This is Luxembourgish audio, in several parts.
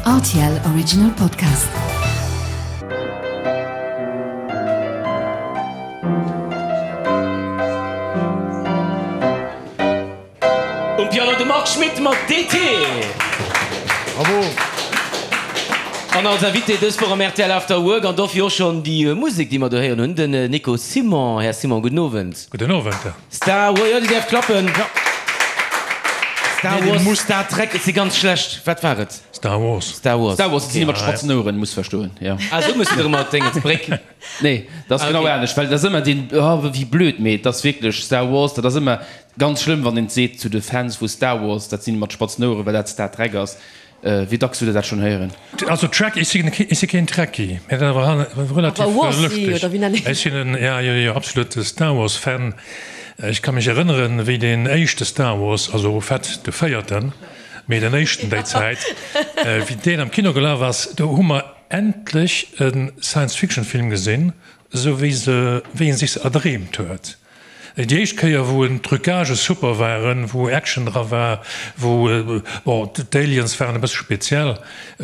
Rtl Original Podcast. Um Piano de Marc Schmitt mat DT. Bravo! An als Invité dës Woch am rtl After Work, an dofir och schonn déi Musek, déi mer do héieren hunn, den Nico Simon. Här Simon, gudden Owend. Gudden Owend. Star Wars, jo, Dir däerft klappen. Ja. Star Nee, Wars, muss. Star Trek, et si ganz schlecht. Wat war et? Star Wars. Star Wars. Star Wars, dat sinn déi mat spatzen Oueren, muss verstoen, jo. Ah, esou muss de erëm mat Déngens, Bréck. Nee, dat ass Ah, genau okay. anescht, well dat ass ëmmer deen, oh, wéi blöd, mee et ass wierklech Star Wars, dat ass ëmmer ganz schlëmm, wann een et seet zu de Fans vu Star Wars, dat sinn déi mat spatzen Oueren, well dat Star Trek ass. Wéi dacks hutt Der dat schonn héieren? Also Trek, ech si ech si keen Trekkie, mä dat awer relativ Awer Warsi, lëschteg. oder wéi nennen Ech sinn en, ja, jo, jo, absolute Star Wars Fan. Ech ka mech erënneren, wéi deen éischte Star Wars, also au fait de véierten, mee den éischten déi Zäit, wéi deen am Kino gelaf ass, do hu mer endlech e Science-Fiction-Film gesinn, esou wéi se, wéi ee sech se erdreemt huet. Déi éischt Kéier, wou en d'Trucagë super waren, wou Action dra war, wou, bon, d'Aliens waren e bësse speziell,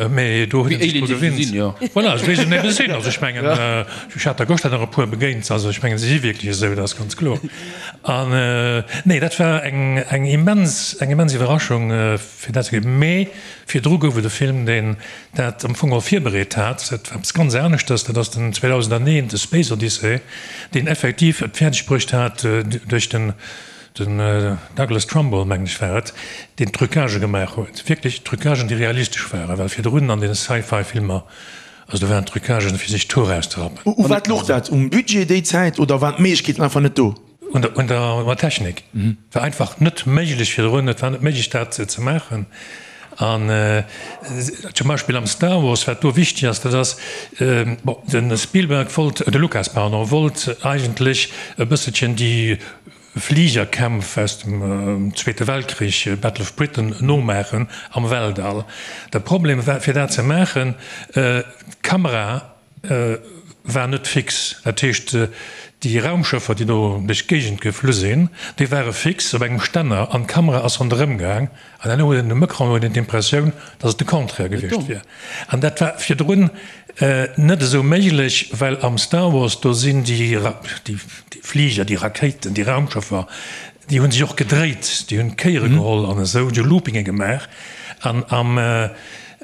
mä do huet ee sech dru gewinnt. Voilà, esou wéi se ebe sinn. Also ech mengen, ech hat der gëschter nach e puer begéint, also ech mengen, se si wierklech esou, dat ass ganz kloer. An, nee, dat war eng, eng immens, eng immens Iwwerraschung, fir dat ze gesinn. Mä virdru gouf et e Film, deen dat am Fong och virbereet hat, dat war eppes ganz aneschters, dat ass den 2001, de Space Odyssey, deen effektiv et fäerdeg bruecht hat, duerch den Douglas Trumbull, mengen ech war et, deen Trucagë gemaach huet, wierklech Trucagen, déi realistesch waren, well virdrun an den Sci-Fi-Filmer, also do waren Trucagen, fir sech d'Hoer auszerappen. U wat louch dat? Um Budget déi Zäit oder waren d'Méiglechkeeten einfach net do? Un der Technik. War einfach net méiglech virdrun, et war net méiglech dat ze maachen. An zum Beispill am Star Wars, wat do wichteg ass, dat ass, bon, de Spielberg wollt, de Lucas, pardon, wollt eigentlech e bësselchen déi Fligerkämpf aus dem Zweete Weltkrich, Battle of Britain, nomaachen am Weltall. De Problem war, fir dat ze maachen, d'Kamera war net fix. Dat heescht, déi Raumschëffer, déi do duerch d'Géigend geflu sinn, déi ware fix op engem Stänner an d'Kamera ass ronderëm gaang. An herno huet een um Ecran huet een d'Impressioun, datt et de Contraire gewiescht wier. An dat war virdrun net esou méiglech, well am Star Wars, do sinn déi Fliger, déi Rakéiten, déi Raumschëffer, déi hu sech och gedréit, déi hunn Kéiere geholl an esou, déi hu Loopinge gemaach. An am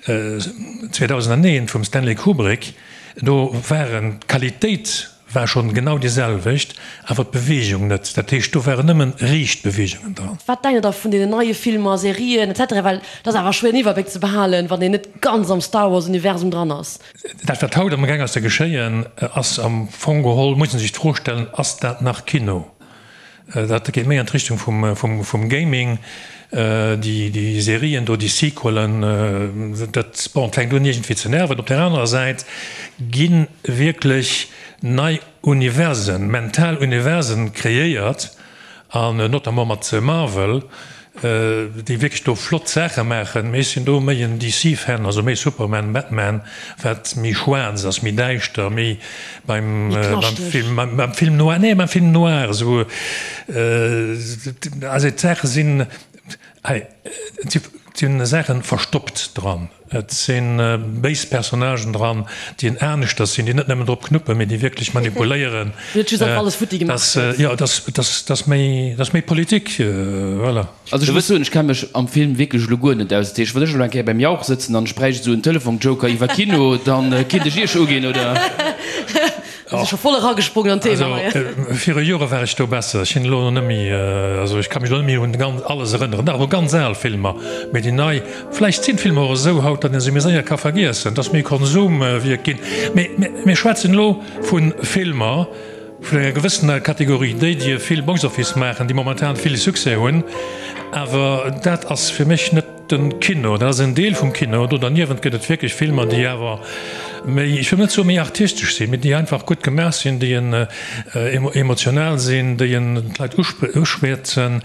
2001 vum Stanley Kubrick, do waren d'Qualitéit war schonn genau déi selwecht, awer d'Beweegung net. Dat heescht, do waren nëmmen riicht Beweegungen dran. Wat denkt der da vun deenen neie Filmer, Serien etc. Well et ass awer schwéier en Iwwerbléck ze behalen, wann een net ganz am Star Wars Universum dran ass. Dat wat haut amgaang ass ze geschéien, ass am Fong geholl, muss een sech d'Fro stellen, ass dat nach Kino? Dat geet méi an d'Richtung vum Gaming, déi Serien do, déi Sequelen, dat, bon, fänkt un iergendwéi ze nerven. Op där anerer Säit gi wierklech nei Universen, mental Universen kreéiert, an notamment mat Marvel, déi wierklech do flott Saache maachen. Mee ech sinn do méi en DC-Fan, also méi Superman, Batman, wat méi schwaarz ass, méi däischter, méi beim Film, beim Film noir, nee, beim Film noir esou. Also d'Saache sinn, hei, et si Saache verstoppt dran. Et si béis Personnagen dran, déi en aneschters sinn, déi net nëmmen drop knuppen, mee déi wierklech manipuléieren. Net just einfach alles futti gemaach gëtt. Jo, dat ass méi Politik, voilà. Also ech muss soen, ech kenne mech am Film wierklech elo guer net aus. Dat heescht, wann ech elo eng Kéier beim Jauch sëtzen an ech bräicht esou en Telefonjoker iwwer Kino, da kinnt ech Iech uginn, oder? Ass scho voll eragesprongen an d'Thema hei. Also viru Jore war ech do besser. Ech sinn elo net méi, also ech ka mech elo net méi un ganz alles erënneren. Nach u ganz al Filmer, mee déi nei, vläicht sinn d'Filmer och esou haut, datt ee se méi séier ka vergiessen, et ass méi Konsumwierk ginn. Mee mir schwätzen elo vu Filmer vun enger gewëssener Kategorie, déi déi vill Box Office maachen, déi momentan vill Succès hunn, awer dat ass fir mech net Den Kino, dat ass en Deel vum Kino. Do derniewent gëtt et wierklech Filmer, déi awer méi, ech wëll net soe méi artistesch sinn, mee déi einfach gutt gemaach sinn, déi en emotional sinn, déi en d'Leit uschwätzen,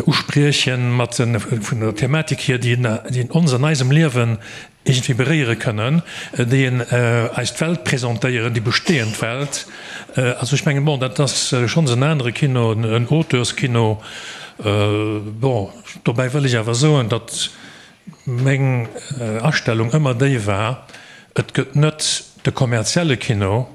uspriechen mat vun der Thematik hier, déi en ons an eisem Liewen iergendwéi beréiere kënnen, déi en eis d'Welt presentéieren, déi bestehend Welt. Also ech mengen, bon, dat ass schonns en anere Kino, en Auteurskino. Bon. Dobäi wëll ech awer soen, datt. meng Astellung ëmmer déi war, et gëtt net de kommerzielle Kino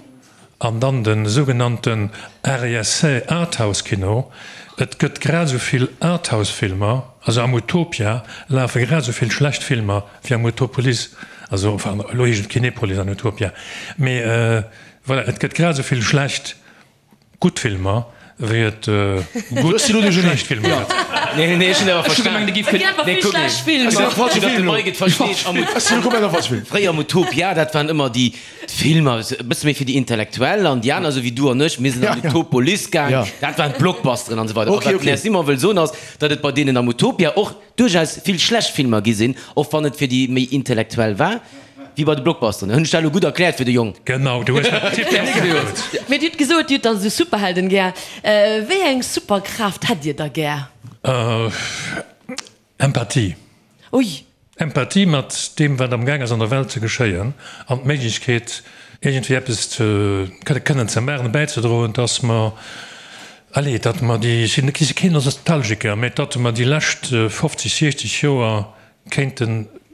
an dann de sougenannten Art-Essai Arthouse-Kino. Et gëtt grad esou vill Arthouse-Filmer, also am Utopia lafe grad esou vill schlecht Filmer wéi am Utopolis, also enfin elo heescht et Kinepolis an Utopia, mee voilà, et gëtt grad esou vill schlecht Gutt Filmer, wéi et gutt schlecht Filmer gëtt. Nee, nee, ech hunn awer verstan. Nee, kuck mol. Fréier am Utopia, dat waren ëmmer déi Filmer, e bësse méi fir déi Intellektuell an déi aner, esou wéi du an ech, mir sinn an d'Utopolis gaang, dat waren d'Blockbusteren an esou weider. A wat den Här Simon wëll soen ass, datt et bei deenen am Utopia och duerchaus vill schlecht Filmer gi sinn, och wann et fir déi méi Intellektuell war, wéi bei de Blockbusteren. Hunn ech dat elo gutt erkläert fir de Jong? Genau, du hues dat tiptop gesot. Mee Dir hutt gesot, Dir hutt dann esou Superhelden gär. Wéi eng Superkraaft hätt Dir da gär? Empathie. Ui. Empathie mat deem, wat am Gaang ass an der Welt ze geschéien, an d'Méiglechkeet, iergendwéi eppes ze kënnen ze maachen, bäizedroen, dass mer, allez, datt mer déi, ech sinn keen Nostalgiker, mä datt mer déi lescht 50, 60 Joer kéinte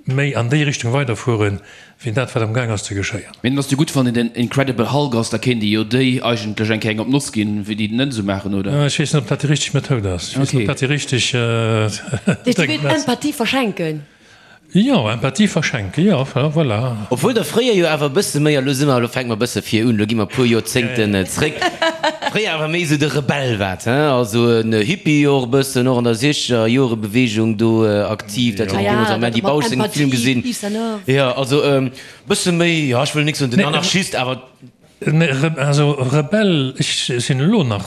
méi an déi Richtung weiderfueren, wéi dat, wat am Gaang ass ze geschéien. Mee dann ass jo gutt, wann een den Incredible Hulk ass, da kéint ee jo déi eigentlech eng Kéier eng op d'Noss ginn, wéi déi den net esou maachen, oder? Ech weess net, ob dat déi richteg Methoud ass. Ech weess net, ob dat déi richteg Deen du wéilt Empathie verschenken? Jo, Empathie verschenken, jo, voilà. Obwuel der fréier jo awer e bësse méi, a lo si mer, lo fänke mer e bësse vir un, lo gi mer e puer Joerzéngten zréck, fréier awer méi esou de Rebell waart, hein, also en Hippie och e bëssen, och an der Siechgerjorebewegung do aktiv, dat huet een deemools am Mandy Bausch sengem Film gesinn. Jo, also e bësse méi, jo, ech wëll nik soen den Anarchist, awer. Nee, also Rebell, ech sinn elo nach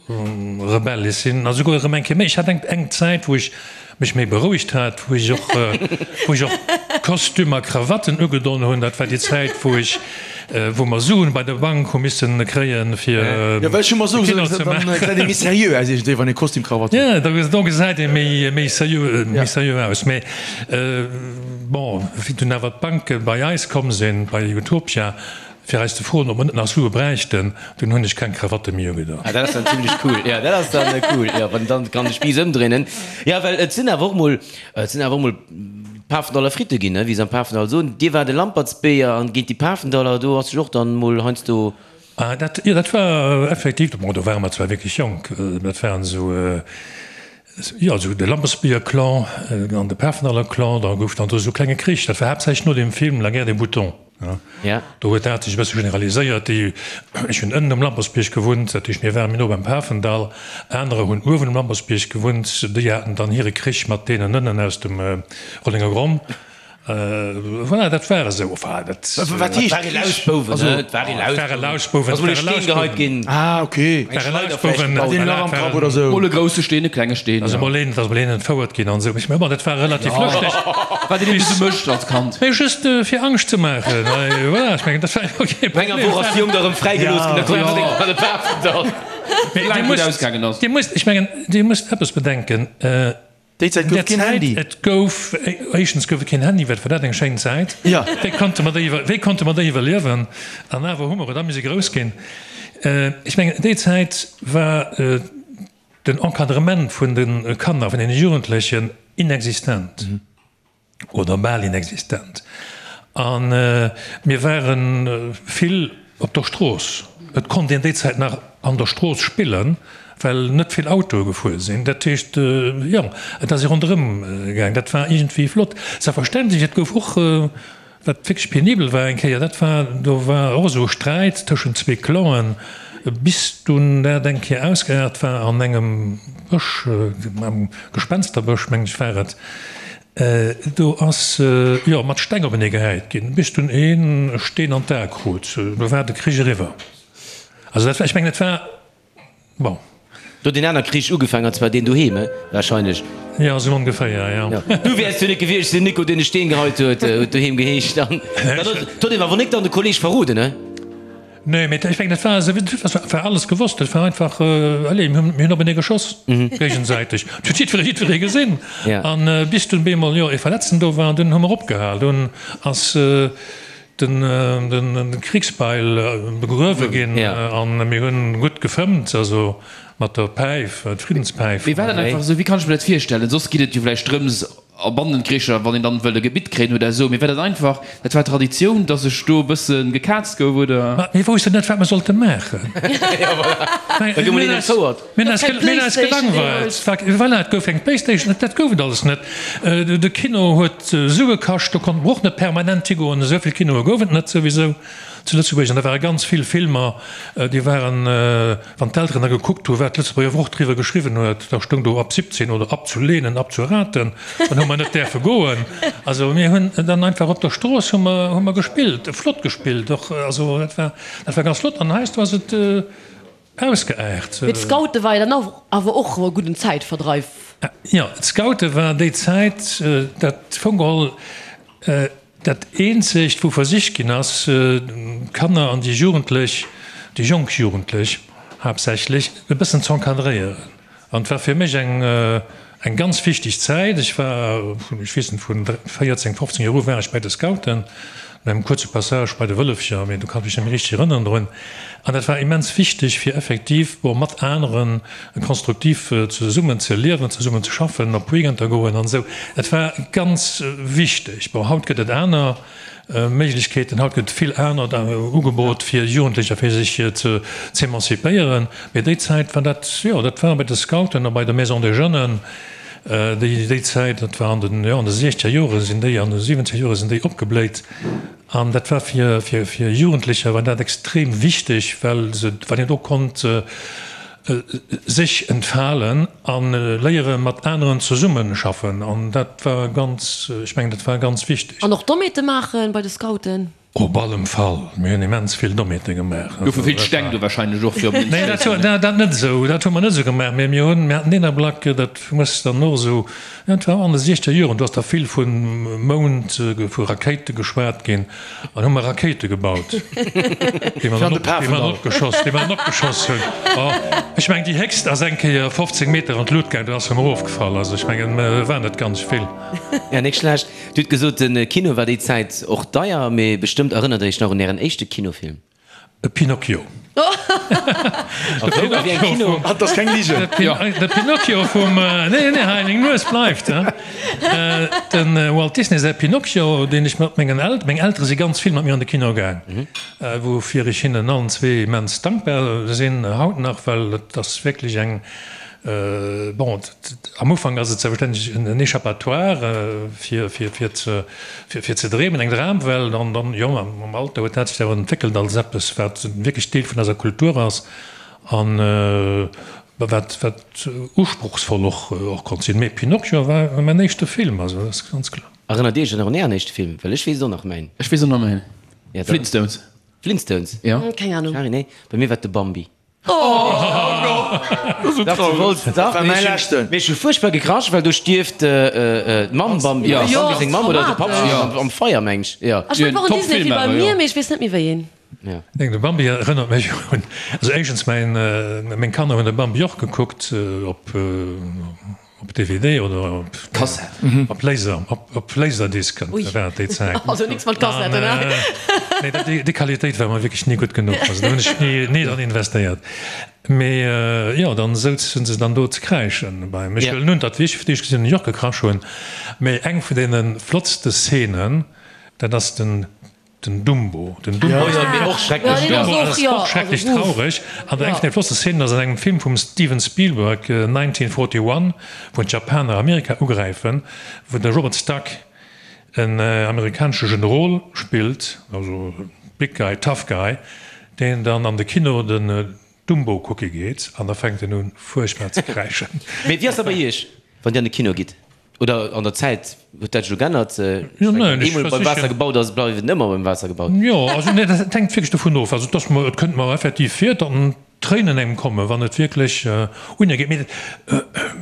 Rebell, ech sinn a souguer erëm eng Kéier méi. Ech hat eng eng Zäit, wou ech mech méi berouegt hat, wou ech och, wou ech och Kostüm a Krawatten ugedon hunn. Dat war déi Zäit, wou ech, wou mer Suen bei der Bank hu missen kréien, fir Jo, well ech hu mer esou gesot, dann gesäit ee méi seriö aus iergendwéi, wann ee Kostüm, Krawatt huet. Jo, do gesäit ee méi, méi seriö, méi seriö aus. Mee bon, wéi dunn awer d'Banke bei eis komm sinn, bei Utopia, Fir eis ze froen, ob mer net nach Sue bräichten, dunn hunn ech keng Krawatte méi ugedoen. Ah, dat ass dann zimlech cool. Jo, dat ass dann cool, jo, wann dann kann de Spiiss ëmdréinen. Jo, well et sinn awer och mol, et sinn awer och mol Pafendaller Fritte ginn, ne, wéi se am Pafendall soen. Dir waart e Lampertsbéier an géint déi Pafendaller, do ass sech och dann mol heiansdo. Ah, dat, jo, dat war effektiv, bon, do ware mer zwar wierklech jonk, dat waren esou, jo, esou de Lampertsbierger-Clan an de Pafendaller-Clan, da gouf dann do esou e klenge Krich. Dat war haaptsächlech no dem Film La guerre des boutons. Do huet dat sech e bësse generaliséiert. Déi, ech hunn ënnen um Lampersbierg gewunnt, dat heescht mir ware méi no beim Pafendall. Anerer hunn uewen um Lampersbierg gewunnt, déi haten dann hire Krich mat deenen ënnen aus dem Rollenger Gronn. Voilà, dat war esou. Enfin, dat. Wat heescht Krich? Lausbouwen, ne? Et war ee Lausbouwen. Et ware Lausbouwen. Ass mol ee Steen geheit ginn. Ah, okay. Et ware Lausbouwen. Hat een e Lach am Kapp oder esou? Mol e grousse Steen, e klenge Steen. Ass emol een, ass emol een entfouert ginn an esou. Ech mengen, bon, dat war relativ lëschteg. Wat een eben esou mécht als Kand. Mee just fir Angscht ze maachen. Voilà, ech mengen, dat war jo kee Probleem. No enger Woch ass de Jong da rëm fräigelooss ginn, da konnt en seng an de Pafendall. Mee Dir Dir musst, ausgaangen ass. Dir musst, ech mengen, Dir musst eppes bedenken. Déi Zäit gouf et keen Handy. Et gouf, éischtens gouf et keen Handy, wat war dat eng schéin Zäit. Wéi konnte mer déi, wéi konnte mer déi iwwerliewen? An awer hu mer et a mir si grouss ginn. Ech mengen, déi Zäit war den Encadrement vun de Kanner, vun deene Jugendlechen inexistent. Oder bal inexistent. A mir ware vill op der Strooss. Et konnt een déi Zäit nach an der Strooss spillen, well net vill Autoe gefuer sinn. Dat heescht, jo, et ass ee ronderëm gaang. Dat war iergendwéi flott. Selbstverständlech, et gouf och, wat wierklech penibel war eng Kéier, dat war, do war och esou e Sträit tëschent zwee Clanen, bis dunn dat eng Kéier ausgeaart war an engem Bësch, am Gespensterbësch, mengen ech war et. Do ass jo mat Steng openee gehäit ginn, bis dunn een e Steen an d'A krut. Do war de Krich eriwwer. Also dat war, ech mengen, et war, bon. Do huet een aner Krich ugefaangen, an zwar deen doheem, he? Wahrscheinlech. Jo, esou ongeféier, jo. Du wäers jo net gewiescht sinn, Nico, deen e Steen geheit huet, huet doheem geheescht. An dann huet een awer nik dann de Kolleg verroden, he? Nee, mee ech mengen, dat war esou, dat war alles gewosst. Dat war einfach, allez, mir hunn openee geschoss, géigesäiteg. Dat huet jiddweree, jiddweree gesinn. An bis dunn bemol, jo, ee Verletzten do war, an dunn hu mer opgehal. Dunn ass den, den Kriegsbeil begruewe ginn an mir hunn gutt gefëmmt, also mat der Päif, d'Friddenspäif. Mee war dat einfach esou? Wéi kann ech mir dat virstellen? Soss geet et jo vläicht drëms. A Bandenkricher, wann een dann wëll e Gebitt kréien oder esou. Mee war dat einfach, dat war Traditioun, dass sech do e bësse gekaazt gouf, oder? Ma mir woussten net, wat mer sollte maachen. Da gouf mol een entfouert. Mir hunn eis, mir hunn eis gelangweilt. Voilà, et gouf eng Playstation, dat gouf et alles net. De Kino huet Sue kascht, do konnte mer och net permanent higoen. Esou vill Kinoe gouf et net souwisou zu Lëtzebuerg. An da ware ganz vill Filmer, déi waren, Wann d'Elteren da gekuckt hu wat d'Lëtzebuerger Wort driwwer geschriwwen huet, da stoung do ab 17 oder abzulehnen, abzuraten, dann hu mer net däerfe goen. Also mir hunn dann einfach op der Strooss hu mer, hu mer gespillt, flott gespillt och, also dat war, dat war ganz flott an heiansdo ass et ausgeaart. Mee d'Scoute war jo dann awer och e gudden Zäitverdreif. Jo, d'Scoute war déi Zäit, dat fong geholl, Dat eenzegt, wou versicht ginn ass, d'Kanner an déi Jugendlech, déi jonk Jugendlech haaptsächlech, e bëssen z'encadréieren. An et war fir mech eng, eng ganz wichteg Zäit. Ech war vun, ech weess net, vun 14, 15 Joer u war ech bei de Scouten, no engem kuerze Passage bei de Wëllefcher, mee do kann ech mech net méi richteg erënneren drun. An dat war immens wichteg, fir effektiv, bon, mat aneren konstruktiv zesummen ze liewen, zesummen ze schaffen, op Weekender goen an esou. Et war ganz wichteg. Bon, haut gëtt et aner Méiglechkeeten, haut gëtt vill anert Ugebot fir Jugendlecher, fir sech ze z'emancipéieren. Mee déi Zäit war dat, jo, dat war bei de Scouten a bei der Maison des Jeunes, déi, déi Zäit, dat war an den, jo, an de siechzeger Jore sinn déi, an de siwwenzeger Jore sinn déi opgebléit. An dat war fir, fir, fir Jugendlecher war dat extrem wichteg, well se, well een do konnt sech entfalen a léiere mat aneren zesummeschaffen. An dat war ganz, ech mengen, dat war ganz wichteg. An och Dommheete maachen bei de Scouten? Op allem Fall. Mir hunn immens vill Dommheete gemaach. Goufe vill Steng do wahrscheinlech och fir op den Nee, dat, dat net esou. Dat hu mer net esou gemaach. Mee mir hunn, mir haten deen Ablack, dat muss dann och esou, Et war an de siechzeger Joren, do ass da vill vu Mound, vu Rakéite geschwat ginn, an hu mer Rakéite gebaut, déi mer dann opgeschoss, déi mer dann opgeschoss hunn. Oh, ech mengen, déi héchst ass eng Kéier 15 Meter an d'Lut gaang, dann ass se erëm erofgefall. Also ech mengen, war net ganz vill. Ja, nik schlecht. Dir hutt gesot, de Kino war déi Zäit och deier, mee bestëmmt erënnert Der Iech nach un Ären éischte Kinofilm? E Pinocchio. Dat ass keng Ligen. De Pinocchio vum, nee, nee, hei, meng Nues bleift, he. De Walt Disney säi Pinocchio, deen ech mat mengen El, meng Eltere si ganz vill mat mir an de Kino gaang, woufir ech hinnen allen zwee immens dankbar sinn, haut nach, well et ass wierklech eng, Bon, am Ufank ass et selbstverständlech en Échappatoire fir fir ze dreemen, eng Dramwelt. An dann, jo, mam Alter huet dat sech awer entwéckelt als eppes, wat wierklech Deel vun eiser Kultur ass an wat wat usprochsvoll och konnt sinn. Mee Pinocchio war mäin éischte Film, also dat ass ganz kloer. Erënnert Dir Iech nach un Ären éischte Film? Well ech weess et och nach, mäin. Ech weess och nach mäin. Flintstones. Flintstones? Jo. Keng Ahnung. Shari, nee, bei mir war et de Bambi. Mee ech hu fuerchtbar gekrasch, well do stierft d'Mamm Bambi, Jo, Bambi seng Mamm oder de Papp am Feier, meng ech. Jo. Ech mengen, et war och en Disney-Film bei mir, mee ech weess net méi wéi een. Neen, de Bambi erënnert mech un, also éischtens mäin, meng Kanner hunn de Bambi och gekuckt op. Op DVD oder op Kassett? Op Laser, op Laserdisc war et déi Zäit. Also nix mat Kassetten, ne? Nee, déi Qualitéit war mer wierklech ni gutt genuch. Also do hunn ech ni, ni dran investéiert. Mee jo, dann souzen se dann do ze kräischen beim. Ech wëllen un, datt wéi ech fir d'éischt gesinn hunn, ech och gekrasch hunn. Mee eng vun deene flottste Szenen, dat ass den Den Dumbo, den Dumbo ass och schrecklech, den Dumbo ass och schrecklech traureg. An eng vun de flottste Szenen ass an engem Film vum Steven Spielberg, 1941, wou d'Japaner Amerika ugräifen, wou de Robert Stack en amerikanesche Generol spillt, also big guy, tough guy, deen dann an de Kino den Dumbo kucke geet an da fänkt en un fuerchtbar ze kräischen. Mee wéi ass dat bei Iech, wann Dir an de Kino gitt? Oder an der Zäit huet dat sech elo geännert? Jo, neen, ech Eemol beim Waasser gebaut ass, bleift et ëmmer beim Waasser gebaut. Jo, also nee, dat hänkt wierklech dovun of. Also et ass mer, et kënnt mer effektiv vir, datt Tréinen engem kommen, wann et wierklech un ee geet. Mee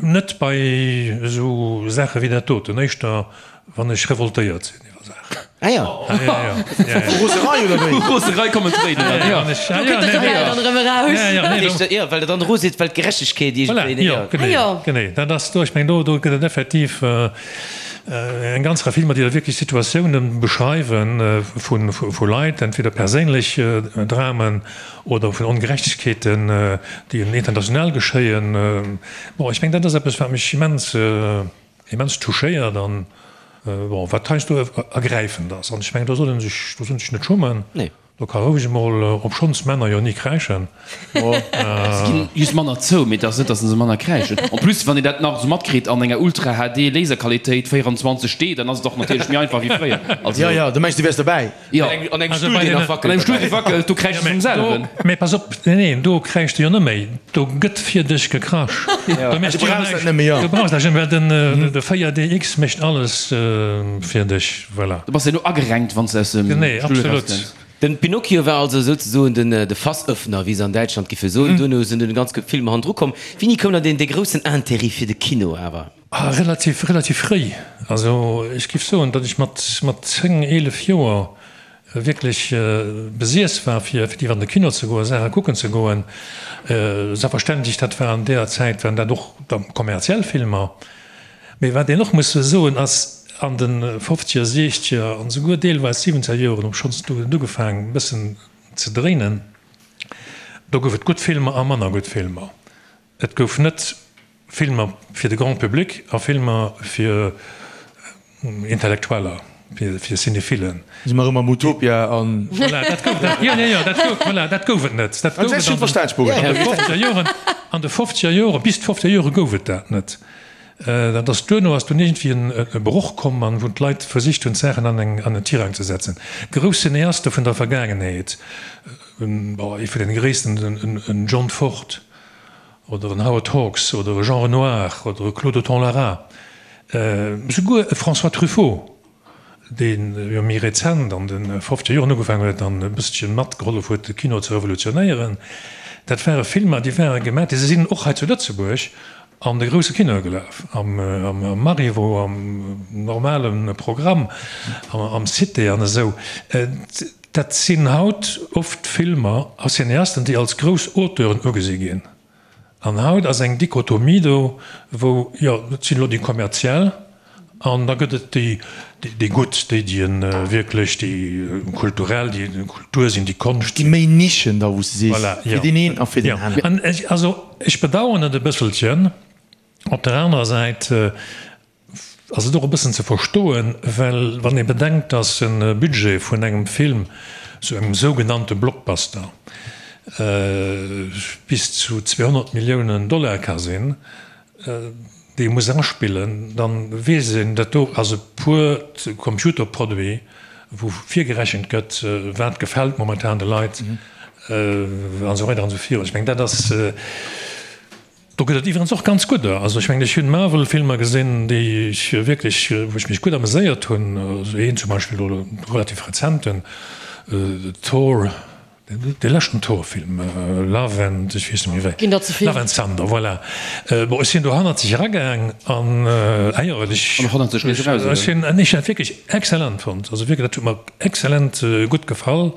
net bei esou Saache wéi dat doten, éischter wann ech revoltéiert sinn iwwer Saachen. Ah ja. Ah ja, ja. Ja, ja. Vu Roserei oder wéi? Vu Roserei kommen d'Tréinen dann, ja. Do kënnt de Rebell dann erëm eraus. Ja, ja, nee, do. Jo, well der dann ero sidd, well d'Gerechtegkeet iergendwéi, Voilà, jo, genee, Ah jo. genee. Dat ass do, ech mengen, do, do gëtt et effektiv eng ganz Rei Filmer, déi da wierklech Situatiounen beschreiwen vu, vu Leit, entweder perséinlech Dramen oder vun Ongerechtegkeeten, déi international geschéien. Bon, ech mengen, dat ass eppes, wat mech immens. immens touchéiert an, bon, wat heiansdo ergräifend ass. An ech mengen, do soll ee sech, do soll een sech net schummen. Do ka roueg emol, obschonns Männer jo ni kräischen. Se ginn just manner zou, mee et ass net, datt se manner kräischen. En plus, wann een dat nach esou matkritt an enger Ultra HD Laserqualitéit 24 D, dann ass et och natierlech méi einfach wéi fréier. Also. Jo, jo, du mengs, du wäers dobäi. Jo. An engem Stull, deen nach wackelt. An engem Stull, dee wackelt, do kräischt de vum selwen. Mee pass op, nee, nee, do kräischt de jo net méi, do gëtt fir dech gekrasch. Do méchs du jo näischt. Du brauchs näischt, well den de 4DX mécht alles fir dech. Voilà. Du bass jo elo agerenkt, wann s de aus dem Genee, Stull absolut. erauskënns. Den Pinocchio war also souzesoen den de Fassöffner, wéi se an Däitschland giffe soen. Duerno sinn dunn ganz vill Filmer hannendru komm. Wéini koum dann deen dee groussen Intérêt fir de Kino awer? Ah, relativ, relativ fréi. Also ech giff soen, datt ech mat, mat 10, 11 Joer wierklech besiess war, fir effektiv an de Kino ze goen, Saache kucken ze goen. Selbstverständlech, dat war an deeër Zäit, waren dat och da kommerziell Filmer. Mee wat een och muss soen ass, an de fofzeger, siechzeger an esouguer deelweis siwenzeger Joren, obschonns do huet et ugefaangen e bëssen ze dréinen, do gouf et gutt Filmer a manner gutt Filmer. Et gouf net Filmer fir de Grand public a Filmer fir Intellektueller, fir Cinéphilen. Si mer erëm am Utopia an. Voilà, dat gouf et, jo, jo, jo, dat gouf, voilà, dat gouf et net. Dat gouf et an de fofzeger Joren, an de fofzeger Joren, bis d'fofzeger Jore gouf et dat net. Dat ass duerno ass dunn iergendwéi e Broch komm an wou d'Leit versicht hunn d'Saachen an eng an en Tirang ze setzen. Grouss Cineaste vun der Vergaangenheet, bon ee vun den gréissten, en John Ford oder en Howard Hawks oder e Jean Renoir oder e Claude Autant-Lara, souguer e François Truffaut, dee jo méi rezent an de fofzeger Joren ugefaangen huet an e bësselche matgehollef huet de Kino ze revolutionéieren, dat ware Filmer, déi ware gemaach, déi sinn och hei zu Lëtzebuerg an de grousse Kinoe gelaf, am Marivaux, am normale Programm, am Cité an esou. Dat sinn haut oft Filmer a Cineasten, déi als grouss Auteuren ugesi ginn. An haut ass eng Dichotomie do, wou, jo, et sinn elo déi kommerziell an da gëtt et déi, déi gutt, déi, déi wierklech déi kulturell, déi Kultur sinn, déi Konscht sinn. Déi méi Nischen da, wou s de sees, fir deen een a fir deen aneren. An ech, also ech bedauern et e bësselchen. Op der anerer Säit ass et och e bëssen ze verstoen, well wann ee bedenkt, datt e Budget vun engem Film, sou engem sougenannte Blockbuster, bis zu 200 Milliounen Dollar ka sinn, déi ee muss aspillen, da weess een, dat do ass e puert Computerproduit, wou virgerechent gëtt, wat gefält momentan de Leit an esou weider an esou virun. Ech mengen, dat ass. Do gëtt et iwwerens och ganz gudder. Also ech mengen, ech hunn Marvel-Filmer gesinn, déi ech wierklech, wou ech mech gutt ameséiert hunn. Also een zum Beispill elo relativ rezenten, Thor, dee leschten Thor-Film, Love and, ech weess net méi wéi, Ginn der ze vill. Love and Thunder, voilà. Bon, ech sinn do hannerzeg eragaang an, ah jo, ech, An och hannerzeg nees eraus, oder? ech hunn, ech hunn dat wierklech excellent fonnt. Also wierklech, dat huet mer excellent gutt gefall.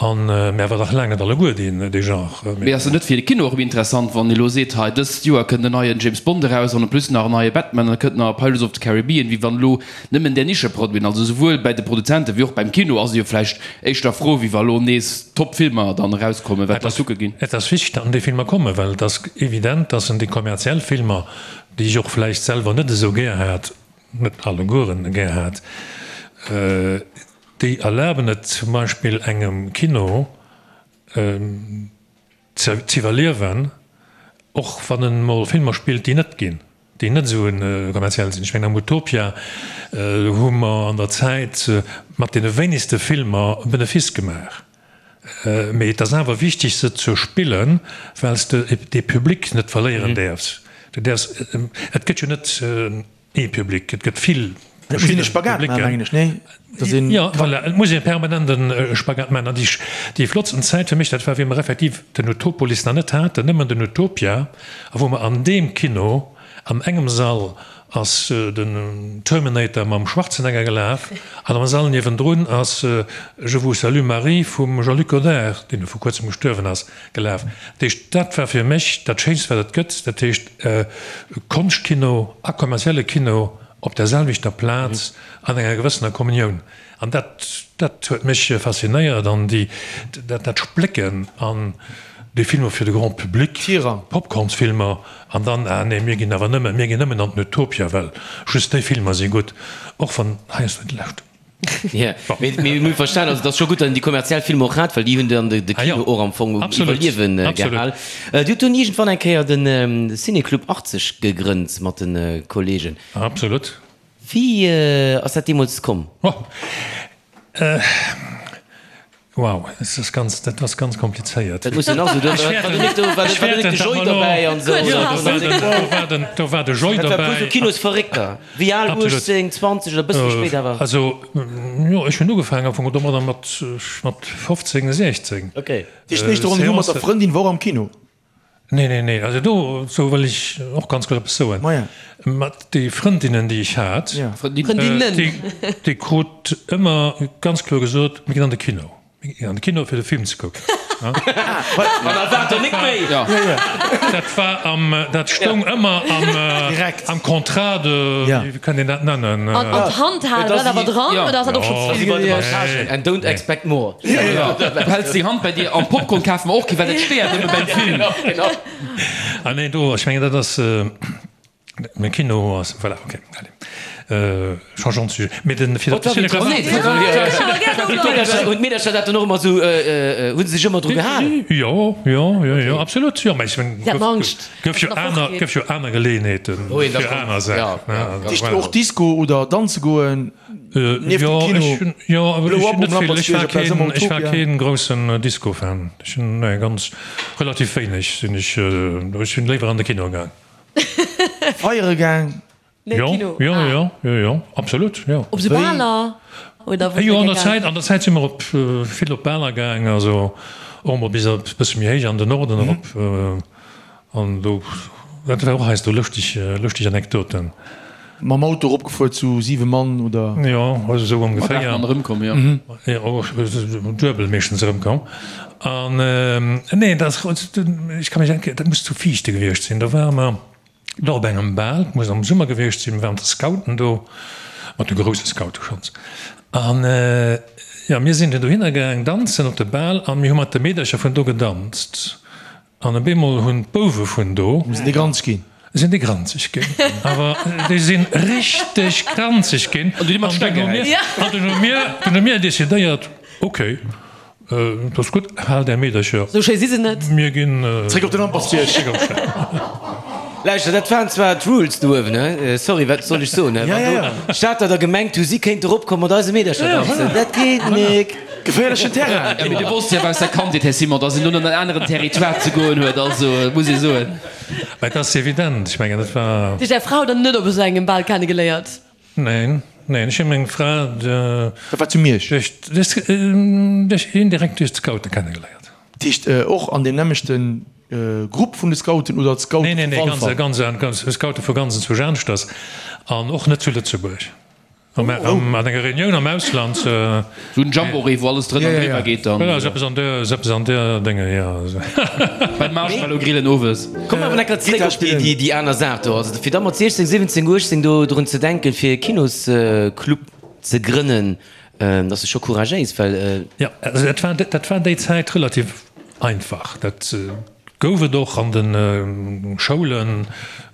An mä awer nach laang net alleguer deen dee Genre. Mee ass et net fir de Kino och erëm interessant, wann ee lo seet, hei dëst Joer kënnt en neien James Bond eraus an en plus nach en neie Batman an da kënnt nach e Pirates of the Caribbean, wéi wann elo nëmmen där Nischeproduiten, also souwuel bäi de Produzenten wéi och beim Kino ass ee jo vläicht éischter frou, wéi wa lo nees top Filmer dann erauskommen, wat d'Leit kucke ginn. Et ass wichteg, datt déi Filmer kommen, well et ass evident, datt en déi kommerziell Filmer, déi ech och vläicht selwer net esou gär hat, net allegueren gär hat, Déi erlaben et zum Beispill engem Kino z'iwwerliewen, och wann en mol Filmer spillt, déi net ginn, déi net esou kommerziell sinn. Ech mengen am Utopia hu mer an der Zäit mat deene wéinegste Filmer e Benefice gemaach. Mee et ass awer wichteg se ze spillen, well s de dee Public net verléieren däerfs. Du däerfs, et gëtt jo net Ee Public, et gëtt vill verschidde Publicken. Jo, voilà, et muss ee permanent e Spagat maachen. An déi flottsten Zäit fir mech, dat war wéi mer effektiv den Utopolis nach net haten, nëmmen den Utopia, a wou mer an deem Kino an engem Sall ass den Terminator mam Schwarzenegger gelaf an am Sall niewendrun ass Je vous salue Marie vum Jean-Luc Godard, deen vu kuerzem gestuerwen ass, gelaf. Dat heescht, dat war fir mech dat Schéinst wat et gëtt, dat heescht Konschtkino a kommerzielle Kino op der selwechter Plaz an enger gewëssener Kommunioun. An dat, dat huet mech faszinéiert an déi, dat, dat Splécken an. Déi Filmer fir de Grand Public, Popcornsfilmer, an dann, ah nee, mir ginn awer nëmmen, mir ginn nëmmen an den Utopia, well just déi Filmer si gutt, och wann heiansdo déi lescht. Jo, mee mir hu verstan, also et ass scho gutt, datt een déi kommerziell Filmer och hat, well déi hunn dann de Kino och am Fong um Iwwerliewe gehal. Dir hutt dunn iergendwann eng Kéier de Ciné-Club 80 gegrënnt mat de Kollegen. Absolut. Wéi ass dat deemools komm? Wow, dat ass ganz, dat ass ganz komplizéiert. Dat muss jo nach esou, do war do net de Joy dobäi an esou. Do war de Joy dobäi. Dat war puer sou Kinosverréckter. Wéi al? 18, 20 oder e bësse méi spéit awer? Also, jo, ech hunn ugefaangen am Fong domadder mat 15, 16. Okay. Déi éischt Rendez-vous mat der Frëndin war och am Kino? Nee, nee, nee, also do sou wëll ech och ganz kuerz eppes soen. Maja. Mat déi Frëndinnen, déi ech hat, Frëndinnen. déi, déi krut ëmmer ganz kloer gesot, mir ginn an de Kino, mir ginn an de Kino fir de Film ze kucken. An erwaart der nik méi. Dat war am, dat stoung ëmmer am, am Contrat de, wéi kann een dat nennen? An d'Hand halen, war dat awer dran oder ass dat och schonn ze vill gewiescht? And don't expect more. Du häls deng Hand bei dir an Popcorn kafe mer och kee, well dat stéiert nëmme beim Film. Ah nee, do, ech mengen dat ass, de Kino ass, voilà, ok, allez, changeons de sujet. Mee den, fir op de Ciné-Club. Hunn d'Meedercher dat dann och ëmmer esou, hu se sech ëmmer dru gehal? Jo, jo, jo, jo, absolut, jo, mä ech mengen, Si haten Angscht, gouf jo aner, gouf jo aner Geleeënheeten fir aner Saachen, ne, Dat heescht och Disco oder danze goen? Nieft dem Kino, jo, ech hunn net vill, ech war keen, ech war keen groussen Disco-Fan. Ech hunn, nee, ganz relativ wéineg sinn ech, ech sinn léiwer an de Kino gaang. Feiere gaang? Nee, Jo, Kino. jo, jo, jo, jo, absolut, jo. Op sou Baler oder wou Jo, sidd an Dir der gaang? Zäit, an der Zäit si mer op vill op Baler gaang, also och emol bis e bësse méi héich an den Norden erop. An do, dat war och heiansdo lëschteg, lëschteg Anekdoten. Mam Auto eropgefuer zu 7 Mann, oder? Jo, also esou ongeféier. Mat 8 Mann erëmkomm, jo. Jo, duebel meeschtens erëmkomm. An, nee, dat ass, ech ka mech eng Kéier, dat muss zu Viichte gewiescht sinn, do ware mer do op engem Bal, et muss am Summer gewiescht sinn, mir waren mat de Scouten do, mat de grousse Scoute schonns. An, jo, mir sinn dunn dohinner gaang danzen op de Bal a mir hu mat de Meedercher vun do gedanzt. An op eemol hunn d'Bouwe vun do. Sinn déi granzeg ginn? Sinn déi granzeg ginn. Awer déi sinn richteg granzeg ginn. An dunn hu mir, an dunn hu mir, dunn hu mir decidéiert, ok, dat ass gutt, haalt är Meedercher. Sou schéi si se net. Mir ginn. Zréck op den Lampertsbierg. Zréck op d'Stad. Lauschter, dat waren zwar d'Rules do uewen, he? Sorry, wat soll ech soen, he? Wann do d'Stater da gemengt hu, si kéinte eropkommen mat eise Meedercher danzen, dat geet nik. Geféierlechen Terrain! Jo, mee du wosst jo awer aus der Kandheet, Här Simon, dass een do an en aneren Territoire ze goen huet, also muss ee soen. Mä et ass evident, ech mengen, et war. Dir hutt Är Frau dann net op esou engem Bal kennegeléiert? Neen, neen, ech hu meng Fra. Dat war zu Miersch? Duerch, duerch, indirekt duerch d'Scoute kennegeléiert. Dat heescht och an deem nämmlechte Grupp vun de Scouten oder d'Scoute vu Walfer? Neen, neen, nee, ganz, ganz, Scoute vu ganz enzwousch aneschters an och net zu Lëtzebuerg. An enger Reunioun am Ausland. Sou en Jamboree, wou alles drënner an driwwer geet dann. Voilà, sou eppes an der, sou eppes an der Dénge, jo. Beim Marshmallow grillen owes. Komm awer enker zréck op déi, déi, déi aner Saach do. Also fir da mat 16, 17, 18 do drun ze denken, fir e Kinosclub ze grënnen, dat ass jo scho couragéis, well. Jo, also dat war, dat war déi Zäit relativ einfach. Dat. Gouf et och an de Schoulen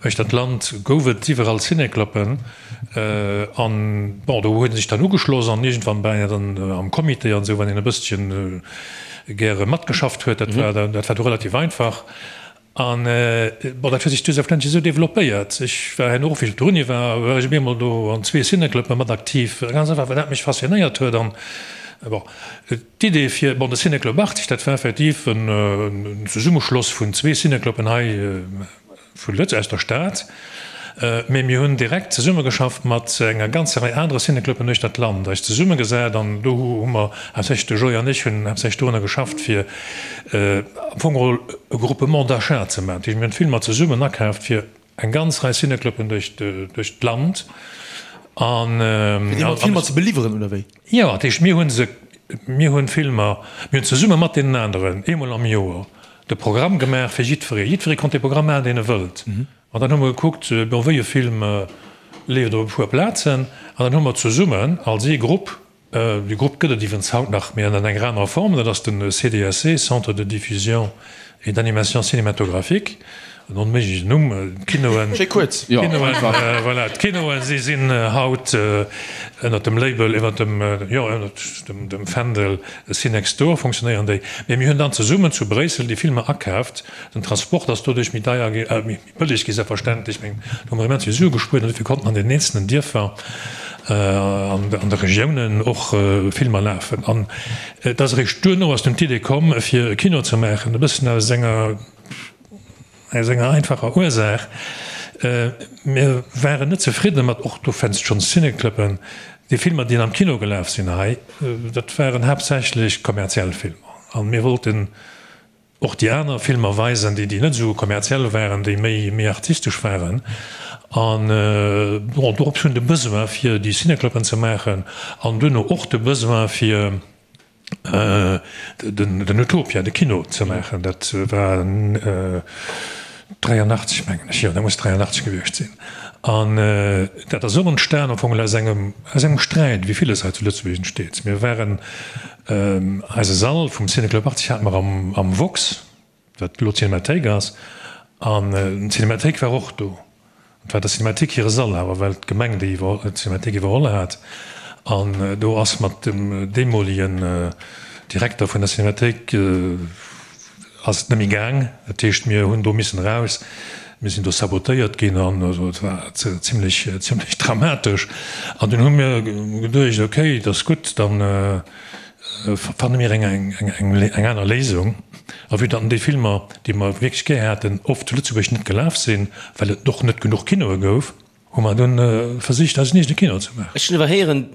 uechter d'Land, gouf et iwwerall Cinécluben. An bon, do huet ee sech dann ugeschloss an iergendwann war een dann am Comité an esou, wann een e bësschen gäre matgeschafft huet. Dat war, dat war du relativ einfach. An bon, dat huet sech du selbstverständlech esou developpéiert. Ech war herno och, wéi ech op der Uni war, war ech op eemol do an zwee Cinécluben mat aktiv, ganz einfach, well dat mech faszinéiert huet. An bon. D'Idee fir, bon, de Ciné-Club 80, dat war effektiv en Zesummeschloss vun zwee Ciné-Cluben hei vu Lëtz, aus der Stad. Mee mir hunn direkt zesummegeschafft mat enger ganzer Rei anere Ciné-Cluben uechter d'Land, eis zesummegesat an do hu mer haaptsächlech, de Joy an ech hunn haaptsächlech dorunner geschafft, fir am Fong geholl e Groupement d'achat ze maachen. Dat heescht, mir hunn d'Filmer zesummen akaaft fir Eng ganz Rei Cinécluben duerch d'Land. An. Fir déi mat Filmer ze beliwweren, oder wéi? Jo, dat heescht, mir hu se, mir hunn Filmer, mir hunn zesumme mat deenen aneren eemol am Joer de Programm gemaach fir jiddweree. Jiddweree konnt dee Programm maachen, deen e wëllt. An dann hu mer gekuckt, bon, wéi e Film leeft op e puer Plazen. An dann hu mer zesummen als ee Grupp Dee Grupp gëtt et iwwrens haut nach, mee ënnert enger anerer Form, dat ass de CDSC, Centre de Diffusion. et d'animation cinématographique, en onméiglechen Numm. D'Kinoen, Schéi kuerz. voilà, d'Kinoen, si sinn haut ënnert dem Label, iwwert dem, jo, ënnert dem Fändel Cinextdoor funktionéieren déi. Mee mir hunn dann zesummen zu Bréissel déi Filmer akaaft. Den Transport ass doduerch méi deier gi, méi bëlleg gi selbstverständlech, mee do hu mer immens vill Sue gespuert an dofir konnten an den eenzelnen Dierfer an de Regiounen och Filmer lafen. An et ass eréischt duerno ass dunn d'Idee komm, fir e Kino ze maachen, e bëssen aus enger, aus enger einfacher Ursaach, Mir waren net zefridde mat, och do fënns schonn Cinecluben, déi Filmer, déi am Kino gelaf sinn hei, dat waren haaptsächlech kommerziell Filmer. A mir wollten och déi aner Filmer weisen, déi déi net esou kommerziell waren, déi méi méi artistesch waren. An bon, dorops hunn de Besoin fir déi Cinecluben ze maachen an duerno och de Besoin fir den den Utopia, de Kino ze maachen. Dat war 83 mengen ech, jo dat muss 83 gewiescht sinn. An dat ass och entstan am Fong aus engem aus engem Sträit, wéi villes hei zu Lëtzebuerg entsteet. Mir waren Eise Sall vum Ciné-Club 80 hate mer am Vox, wat elo d'Cinémathéik ass, an d'Cinémathéik war och do. Et war der Cinémathéik hire Sall awer, well d'Gemeng déi d'Cinémathéik iwwerholl hat. An do ass mat dem deemolegen Direkter vun der Cinémathéik ass et net méi gaang. Dat heescht, mir hunn do missen eraus. Mir sinn do sabotéiert ginn an et war zimlech, zimlech dramatesch. An dunn hu mir geduecht, okay, et ass gutt, da fanne mir eng, eng, eng aner Léisung. A vue datt déi Filmer, déi mer wierklech gär haten, oft zu Lëtzebuerg net gelaf sinn, well et och net genuch Kinoe gouf, hu mer dunn versicht, eisen eegene Kino ze maachen. Ech hunn awer héieren,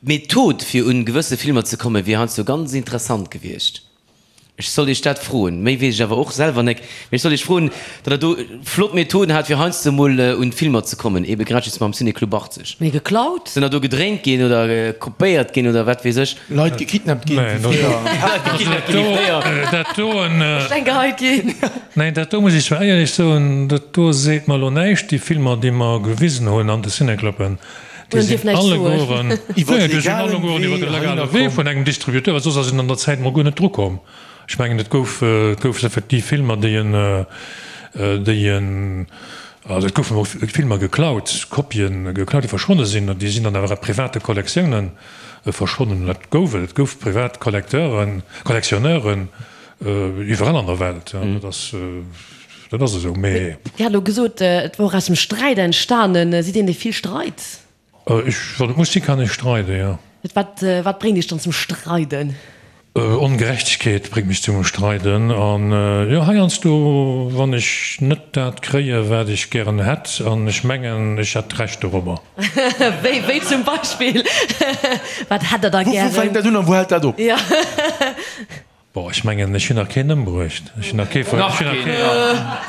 d'Method fir un gewësse Filmer ze kommen, wier heiansdo ganz interessant gewiescht. Ech soll Iech dat froen, méi weess ech awer och selwer nek, mee ech soll Iech froen, datt Der do flott Methoden hat, fir heiansdo mol un d'Filmer ze kommen, ebe grad just mam Ciné-Club 80. Mee geklaut? Sinn der do gedréint ginn oder kopéiert ginn oder wat weess ech? Leit gekidnappt ginn wéi fréier. Leit gekidnappt ginn wéi fréier. Dat do, Steng geheit ginn. Neen, dat do muss ech zwar éierlech soen, dat do seet mer elo näischt. Déi Filmer, déi mer gewisen hunn an de Ciné-Cluben, Déi sinn allegueren, nee, déi sinn allegueren iwwer de legale Wee vun engem Distributeur, well soss ass een an der Zäit mol guer net drukomm. Ech mengen, et gouf, et gouf effektiv Filmer, déi en, déi en, also et goufen och Filmer geklaut, Kopien geklaut, déi verschwonne sinn, an déi sinn dann awer a private Kollektiounen verschwonnen. Dat gouf et, et gouf privat Collecteuren, Collectionneuren iwwerall an der Welt, dat ass. Dat ass esou, mee. Dir hat elo gesot, et wor aus dem Sträit entstanen. Sidd een, dee vill streit? Ech, wann et muss sinn, kann ech streiden, jo. Wat, wat bréngt Iech dann zum Streiden? Ongerechtegkeet bréngt mech zum Streiden. An, jo, heiansdo, wann ech net dat kréie wat ech gären hätt, an ech mengen, ech hätt Recht dorobber. Wéi, wéi zum Beispill? Wat hätt Der da gären? Wou fänkt dat un a wou hält dat op? Jo. Bon, ech mengen, ech hunn nach keen ëmbruecht, ech hunn nach kee ver, ech hunn nach kee,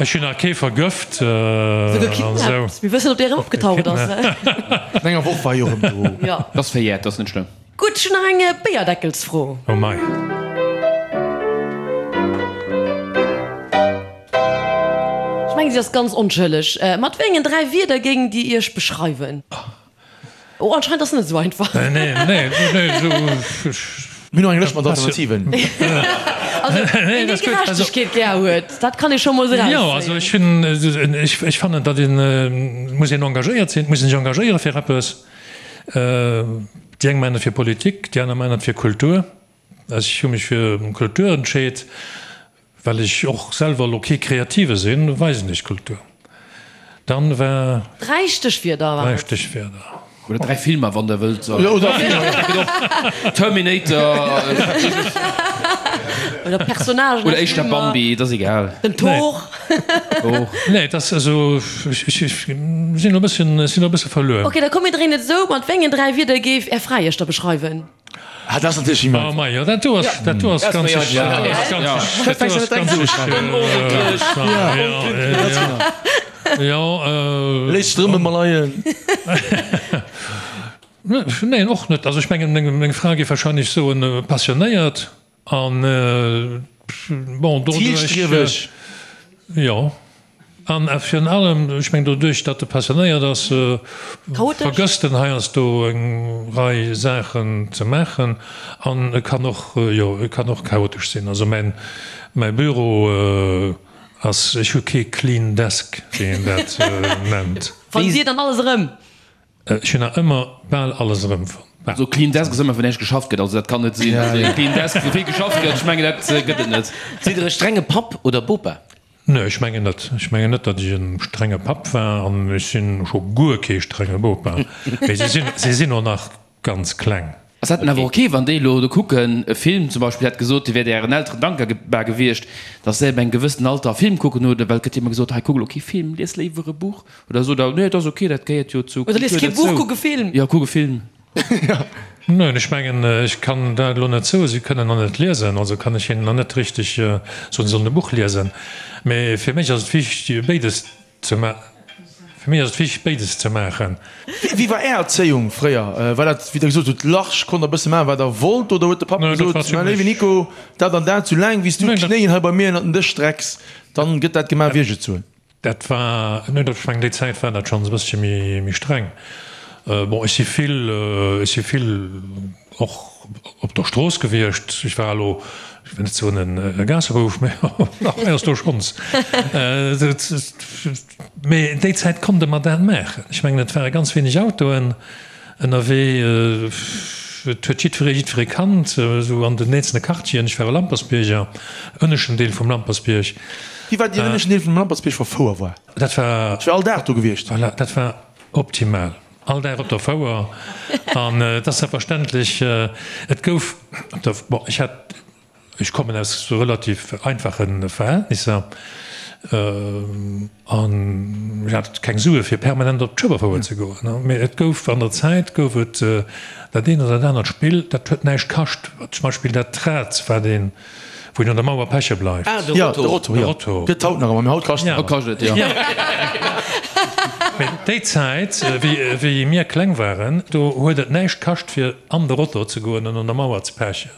ech hunn nach kee vergëft Souguer an esou. kidnappt. Mir wëssen, ob dee erëm opgetaucht ass. No enger Woch war hie erëm do. Jo. Dat ass verjährt, dat ass net schlëmm. Gutt, ech hunn nach eng Béierdeckelsfro. Oh mei. Ech mengen, si ass ganz onschëlleg. Mat wéi engen 3 Wierder géingt Dir Iech beschreiwen? Oh, anscheinend ass net esou einfach. Nee, nee, nee, nee, esou, ech. Mir hunn nach eng Lëscht mat Alternativen. Also, ween déi Gerechtegkeet gär huet, dat kann ee scho mol erauszéien. Jo, also ech hunn, ech, ech fannen, datt een, et muss een engagéiert sinn, et muss een sech engagéiere fir eppes. Déi eng maachen et fir Politik, déi aner maachen et fir Kultur. Ech hu mech fir Kultur entscheet. Well ech och selwer elo kee Kreative sinn, weisen ech Kultur. Dann war. 3 Stéchwierder waren et. 3 Stéchwierder. Oder 3 Filmer, wann der wëllt. Oder Filmer. Terminator. Oder Personnagen. Oder éischter Bambi, et ass egal. Den Thor. Nee, et ass also, ech sinn elo e bësschen, ech sinn elo e bësse verluer. Ok, da komm mir dréinen et esou, Mat wéi engen 3 Wierder géif Är Fra Iech da beschreiwen? Ah, dat ass natierlech immens. Oh mei, jo, dat do ass, dat do ass ganz sicher, dat do ass ganz sicher, jo, Léisst drëmme mer leien. Neen, och net. Also ech mengen, meng Fra géif wahrscheinlech soen, passionéiert an, bon, doduerch. Zielstrieweg. Jo. An virun allem, ech mengen doduerch, datt e passionéiert ass, vergësst en heiansdo eng Rei Saachen ze maachen. An e kann och, jo, e kann och chaotesch sinn. Also mäin, mäi Büro ass, ech hu kee clean desk, wéi een dat nennt. Fannt Dir dann alles erëm? Ech hunn nach ëmmer bal alles erëmfonnt. Bal. Sou clean desk ass ëmmer wou näischt geschafft gëtt, also dat kann net sinn. Also e clean desk wou vill geschafft gëtt, ech mengen dat gëtt et net. Sidd Der e strenge Papp oder Bopa? Nee, ech mengen net. Ech mengen net, datt ech e strenge Papp war an ech sinn scho guer kee strenge Bopa. Mee si sinn, si sinn och nach ganz kleng. Ass dat dann awer ok, wann déi elo do kucken, e Film zum Beispill, hätt gesot, Dir wäert Ären Elteren dankbar gewiescht, datt se ab engem gewëssenen Alter e Film kucken oder well et gëtt jo ëmmer gesot, hei kuck elo kee Film, lies léiwer e Buch oder sot Der, nee, et ass ok, dat gehéiert jo zur Oder lies Kultur kee Buch, derzou. kuck e Film. Jo, kuck e Film. Neen, ech mengen, ech kann dat elo net soen. Si kënnen nach net liesen, also kann ech hinnen nach net richteg soen, si sollen e Buch liesen. Mee fir mech ass et wichteg, béides ze ma fir mech ass et wichteg, béides ze maachen. Wéi war Är Erzéiung fréier? War dat, wéi Der gesot hutt, large, konnt Der e bësse maachen, wat Der wollt, oder huet de Papp Neen, dat gesot, war Mäi zimmlech. léiwen Nico, dat an dat, sou laang wéi s du Neen, dat. d'Knéien hei bei mir ënnert den Dësch strecks, dann gëtt dat gemaach, wéi ech et soen? Dat war, nee, dat, ech mengen, déi Zäit war dat schonns e bëssche méi, méi streng. Bon, ech si vill, ech si vill och op der Strooss gewiescht. Ech war elo, ech wëll net soen e Gaassebouf, mä heiansdo schonns. Mee déi Zäit konnte mer dat maachen. Ech mengen, et ware ganz wéineg Autoen ënnerwee. Et huet jiddweree jiddweree kannt, esou an den eenzelne Quartieren. Ech war e Lampersbierger, ënneschten Deel vum Lampersbierg. Wéi war deen ënneschten Deel vum Lampertsbierg wa Fouer war? Dat war. Ech wär all Dag do gewiescht. Voilà, dat war optimal. All Dag op der Fouer. An et ass selbstverständlech, et gouf op der, bon, ech hat, ech kommen aus relativ einfache Verhältnisser an ech hat keng Sue fir permanent op d'Schueberfouer ze goen. Mee et gouf an der Zäit gouf et dat eent oder dat anert Spill, dat huet näischt kascht, zum Beispill dat Rad, wat een, Wou een un der Mauer peche bleift. Ah, de Ja, Rotto. de Rotto, De jo. Rotto. Gëtt haut nach ëmmer, mee haut kascht et. Haut kascht et, jo. Mee déi Zäit, wéi, wéi mir kleng waren, do huet et näischt kascht, fir an de Rotto ze goen an un der Mauer ze pechen.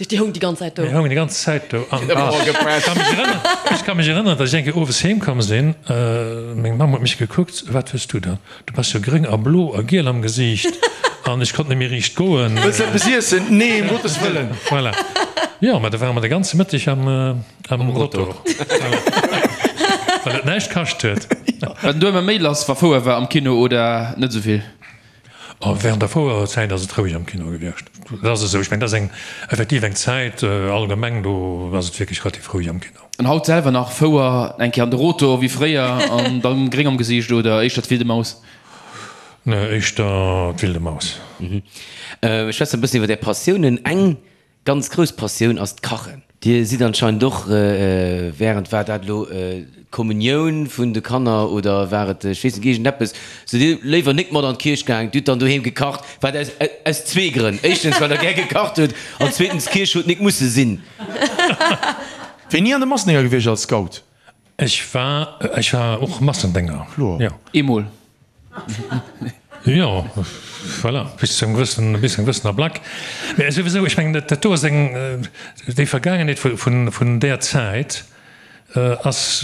Déi houng déi ganz Zäit do. Déi houngen déi ganz Zäit do. An ech ka mech erënneren, ech ka mech erënneren, datt ech eng Kéier owes heem komm sinn, meng Mamm huet mech gekuckt, Wat hues du dann? Du bass jo gréng a blo a giel am Gesiicht an ech konnt net méi riicht goen. Wëlls eppes iessen? Nee, ëm Gottes Wëllen! Voilà. Jo, mä da ware mer de ganze Mëtteg am Rotor. Voilà. Well et näischt kascht huet. War den do ëmmer méi lass, wa Fouer war am Kino oder net esou vill? Oh, während der Fouerzäit ass et roueg am Kino gewiescht. Dat ass esou. Ech mengen, dat ass eng effektiv eng Zäit allgemeng, do ass et wierklech relativ roueg am Kino. An haut selwer nach Fouer, eng Kéier an de Rotor wéi fréier an dann gréng am Gesiicht oder éischter d'Wilde Maus? Nee, éischter d'Wilde Maus. Ech schwätzen e bëssen iwwer Är Passiounen. Eng ganz grouss Passioun ass d'Kachen. Dir sidd anscheinend och während, war dat elo d'Kommunioun vun de Kanner oder war et, ech weess net, iergendeppes, sidd Dir léiwer nik mat an d'Kierch gaang, Dir hutt dann doheem gekacht, wat aus, aus zwee Grënn, éischtens well Der gär gekacht hutt an zweetens d'Kierch huet nik musse sinn. Wéini an de Massendénger gewiescht als Scout? Ech war, ech war och Massendénger, Kloer. jo. Eemol. Jo, voilà, bis zu engem gewëssen, bis zu engem gewëssen Ablack. Mä souwisou, ech mengen, dat do ass eng, déi Vergaangenheet vun, vun där Zäit ass,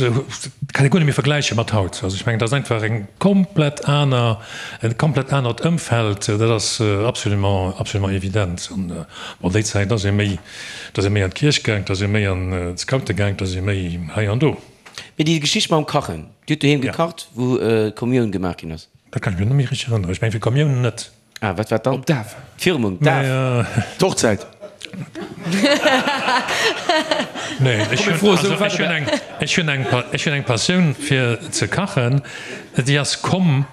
kann ee guer net méi vergläiche mat haut. Also ech mengen, dat ass einfach eng komplett aner, e komplett anert Ëmfeld, dat ass absolument, absolument evident. An bon, déi Zäit ass ee méi, da ass ee méi an d'Kierch gaang, da ass ee méi an d'Scoute gaang, da ass ee méi hei an do. Mee déi Geschicht mam Kachen, Dir hutt doheem gekacht, wou d'Kommioun gemaach ginn ass? Dat kann ech mir net méi richteg erënneren. Ech mengen, fir d'Kommioun net. Ah, wat war dann? Op d'Daf. D'Firmung, d'Daf. D'Hochzäit. Nee, ech hunn, also ech hunn eng, ech hunn eng, ech hunn eng Passioun fir ze kachen. Déi ass komm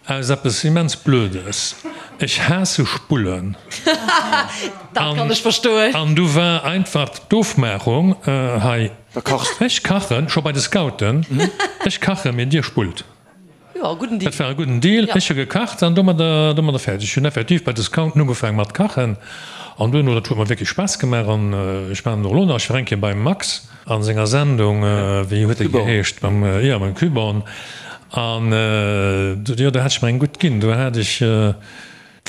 aus eppes immens Blödes. Ech haasse Spullen. Dat kann ech verstoen. An du war einfach d'Ofmaachung hei. Da kachs de. Ech kachen, scho bei de Scouten, ech kachen, mee dir spullt. Jo, gudden Deal. Dat war e gudden Deal. Ech hu gekacht an domadder, domadder fäerdeg. Ech hunn effektiv bei de Scouten ugefaangen mat kachen an duerno, dat huet mer wierklech Spaass gemaach an ech maachen et och elo nach. Ech war eng Kéier beim Max a senger Sendung, wéi huet déi geheescht, mam, jo, mam Küborn an jo, do hat ech mer eng gutt ginn. Do hat ech.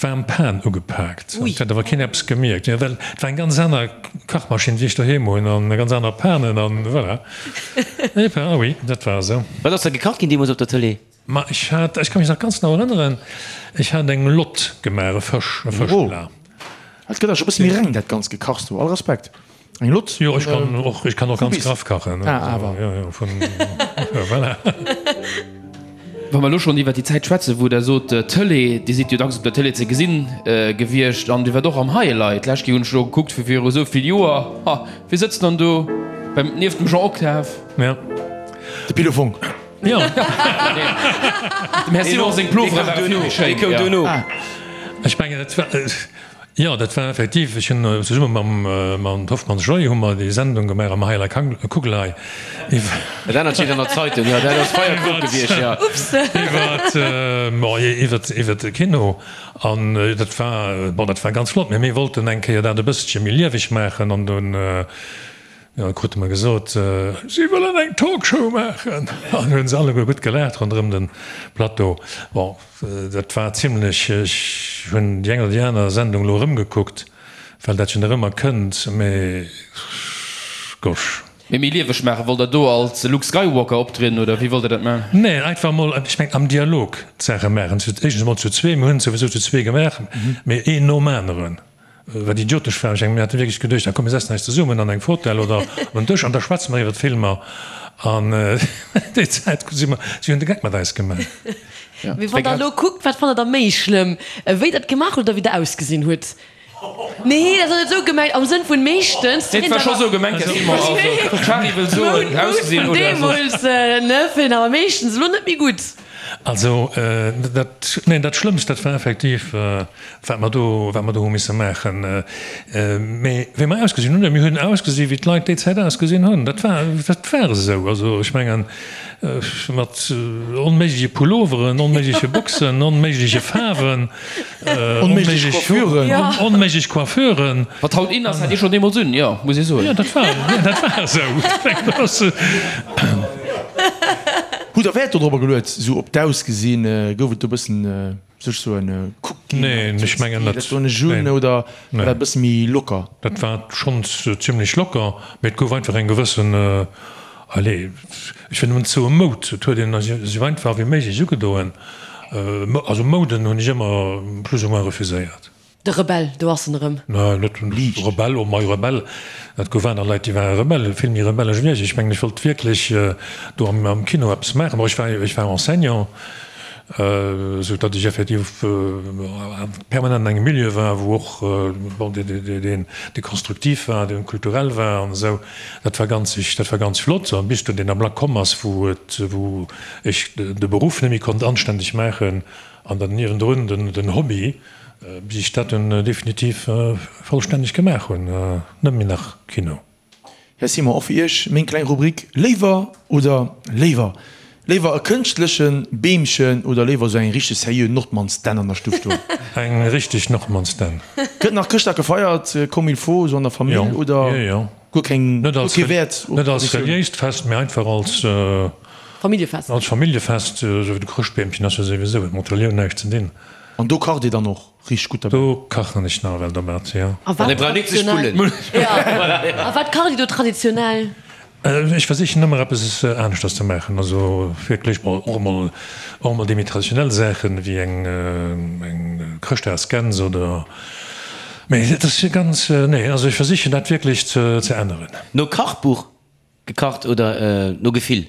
D'waarm Pan ugepaakt. Et huet awer keen eppes gemierkt, jo, well et war eng ganz aner Kachmaschinn, wéi ech doheem hunn, an ganz aner Panen an voilà. Et war, ah oui, dat war esou. Wat ass da gekacht ginn deemools op der Tëlee? Ma ech hat, ech ka mech nach ganz genau erënneren, ech hat eng Lott gemaach, e Fësch, e Fëschplat. Oh, et gëtt awer scho e bësse méi reng, dat ganzt Gekachs do. All Respekt. Eng Lott? Jo, ech kann och, ech kann och ganz graff kachen. Ah, awer. Jo, jo, vun, voilà. Wa mer elo schonn iwwert déi Zäit schwätzen, wou Der sot, Tëlee, Dir sidd jo dacks op der Tëlee ze gesinn gewiescht an Dir waart och am Highlight. D'lescht Kéier hunn ech elo gekuckt, vu viru esou vill Joer. Ha, wie sëtzt dann do beim, nieft dem Jean Octave? Ja. De Pilo Fonck. Jo. Dem Här Simon seng Plovere ware vill méi schéin. Dee koum duerno. Ech mengen, et war. Jo, dat war effektiv, ech hunn zesumme mam mam Hoffmanns Joy hu mer déi Sendung gemaach am Heieler Kugelei iwwer. Dat anert steet an der Zeitung, jo, dat ass feier klug gewiescht, jo. Iwwert, bon, iwwert, iwwert de Kino. An dat war, bon, dat war ganz flott, mee mir wollten eng Kéier dat e bësselche méi lieweg maachen an dunn, jo, krute mer gesot, si wëllen eng Talkshow maachen. An hunn se alleguer gutt gelaacht ronderëm de Plateau. Bon. Dat war zimlech, ech hunn déi eng oder déi aner Sendung elo erëmgekuckt, well dat jo nach ëmmer kënnt, mee gosh. Mee méi lieweg maachen, wollt der do als Luke Skywalker optrieden oder wéi wollt der dat maachen? Nee, einfach mol, ech mengen am Dialog d'Saache maachen, éischtens emol zu zwee, mir hunn et souwisou zu zwee gemaach, mee een nom aneren. Wat idiotesch war. Ech mengen, mir hate wierklech geduecht, ah komm, mir setzen eis zesummen an eng Fotell oder op en Dësch an da schwätze mer iwwer d'Filmer. An déi Zäit si mer, si hunn de Geck mat eis gemaach. Mee wann der elo kuckt, wat fannt der da méi schlëmm, wéi der et gemaach hutt oder wéi der ausgesinn hutt? Nee, dat ass net esou gemengt, am Sënn vun meeschtens. Nee, et war scho sou gemengt, Här Simon. Also, d'Shari wëll soen, ausgesinn oder soss. Deemools, ne, fir awer meeschtens elo net méi gutt. Also, dat, neen, dat Schlëmmst, dat war effektiv, wat mer do, wat mer do hu misse maachen. Mee wéi mer ausgesinn hunn, mir hunn ausgesi wéi d'Leit déi Zäit ausgesinn hunn. Dat war, dat war esou. Also ech mengen, mat onméigleche Pulloveren, onméigleche Boxen, onméigleche Faarwen, onméiglech Coiffuren, onméiglech Coiffuren. Wat haut in ass, hat Dir schonn deemools un, jo, muss ee soen. Jo, dat war, dat war esou. Hutt Der Wäert dodrobber geluet, esou op d'Ausgesinn? Gouf et do e bëssen, soll ech soen, kuckt ginn? Neen, ech mengen net. Dat do ech un, oder war dat e bësse méi locker? Dat war schonns zimlech locker, mee et gouf einfach eng gewëssen, allez, ech wëll nëmmen soe Moud. Et huet een esou einfach wéi méiglech ugedoen. Also Mouden hunn ech ëmmer plus ou moins refuséiert. De Rebell, do ass en erëm. Nä, net Rebell, oh mei Rebell, et gouf aner Leit, déi ware Rebell, vill méi rebellesch wéi ech. Ech mengen, ech wollt wierklech do am Kino eppes maachen. Bon, ech war, ech war Enseignant, esou datt ech effektiv permanent an engem Milieu war, wou och, bon, deen, dee konstruktiv war, dee kulturell war an esou. Dat war ganz, dat war ganz flott. An bis dunn deen Ablack komm ass, wou et, wou ech de Beruff net méi konnt anstänneg maachen an dann niewendrun den Hobby, Bis ech dat dunn definitiv vollstänneg gemaach hunn, net méi nach Kino. Här Simon, och fir Iech meng kleng Rubrik, Léiwer oder léiwer? Léiwer e kënschtleche Beemchen oder léiwer esou eng richteg seriö Nordmannsdänn an der Stuff stoen? Eng richteg Nordmannsdänn. Gëtt nach Chrëschtdag gefeiert comme il faut, esou an der Famill, oder guer keng, guer kee Wäert op Traditioun? Net als reliéist Fest, mee einfach als Familljefest. Als Familljefest, esou wéi de Chrëschtbeemchen ass jo souwisou, huet mat Relioun näischt ze dinn. An do kacht Dir dann och richteg gutt derbäi? Do kachen ech nawell dermat, jo. A wat traditionell? A wat kacht Dir do traditionell? Ech versichen ëmmer eppes aneschters ze maachen, also wierklech mol och emol och emol déi méi traditionell Saachen, wéi eng eng Chrëschtdagsgäns oder, mee et ass ganz, nee, also ech versichen dat wierklech ze ze änneren. No Kachbuch? Gekacht oder no Gefill?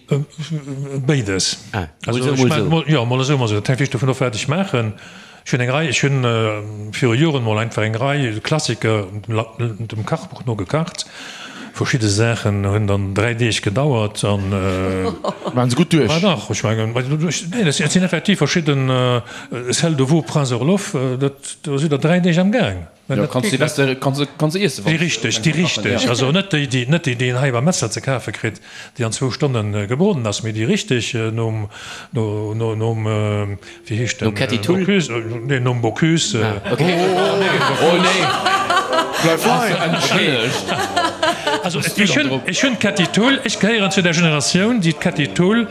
Béides. Also ech maachen mol, jo, mol esou, mol esou. Dat hänkt wierklech dovun of, wat ech maachen. Ech hunn eng Rei, ech hunn viru Joren mol einfach eng Rei Klassiker dem Kachbuch no gekacht. Verschidde Saachen hunn dann 3 Deeg gedauert an. Waren se gutt duerch? Ma dach, ech mengen, nee, et sinn effektiv verschidden, Selle de veau Prince Orloff, dat, do sidd Der 3 Deeg am Gaang. Jo, kanns de beste, kanns de, kanns de iessen, wann. Déi richteg, déi richteg, also net déi, déi, net déi, déi een hei beim Metzler ze kafe kritt, déi an zwou Stonne gebroden ass, mee déi richteg nom, no, no, nom, wéi heescht den? Nom Ketty Thull? Bocuse, nee, nom Bocuse. Ah, okay. Oh, nee! Bleif hei! Entschëllegt! Also ech hunn, ech hunn d'Kätti Thull, ech gehéieren zu der Generatioun, déi d'Kätti Thull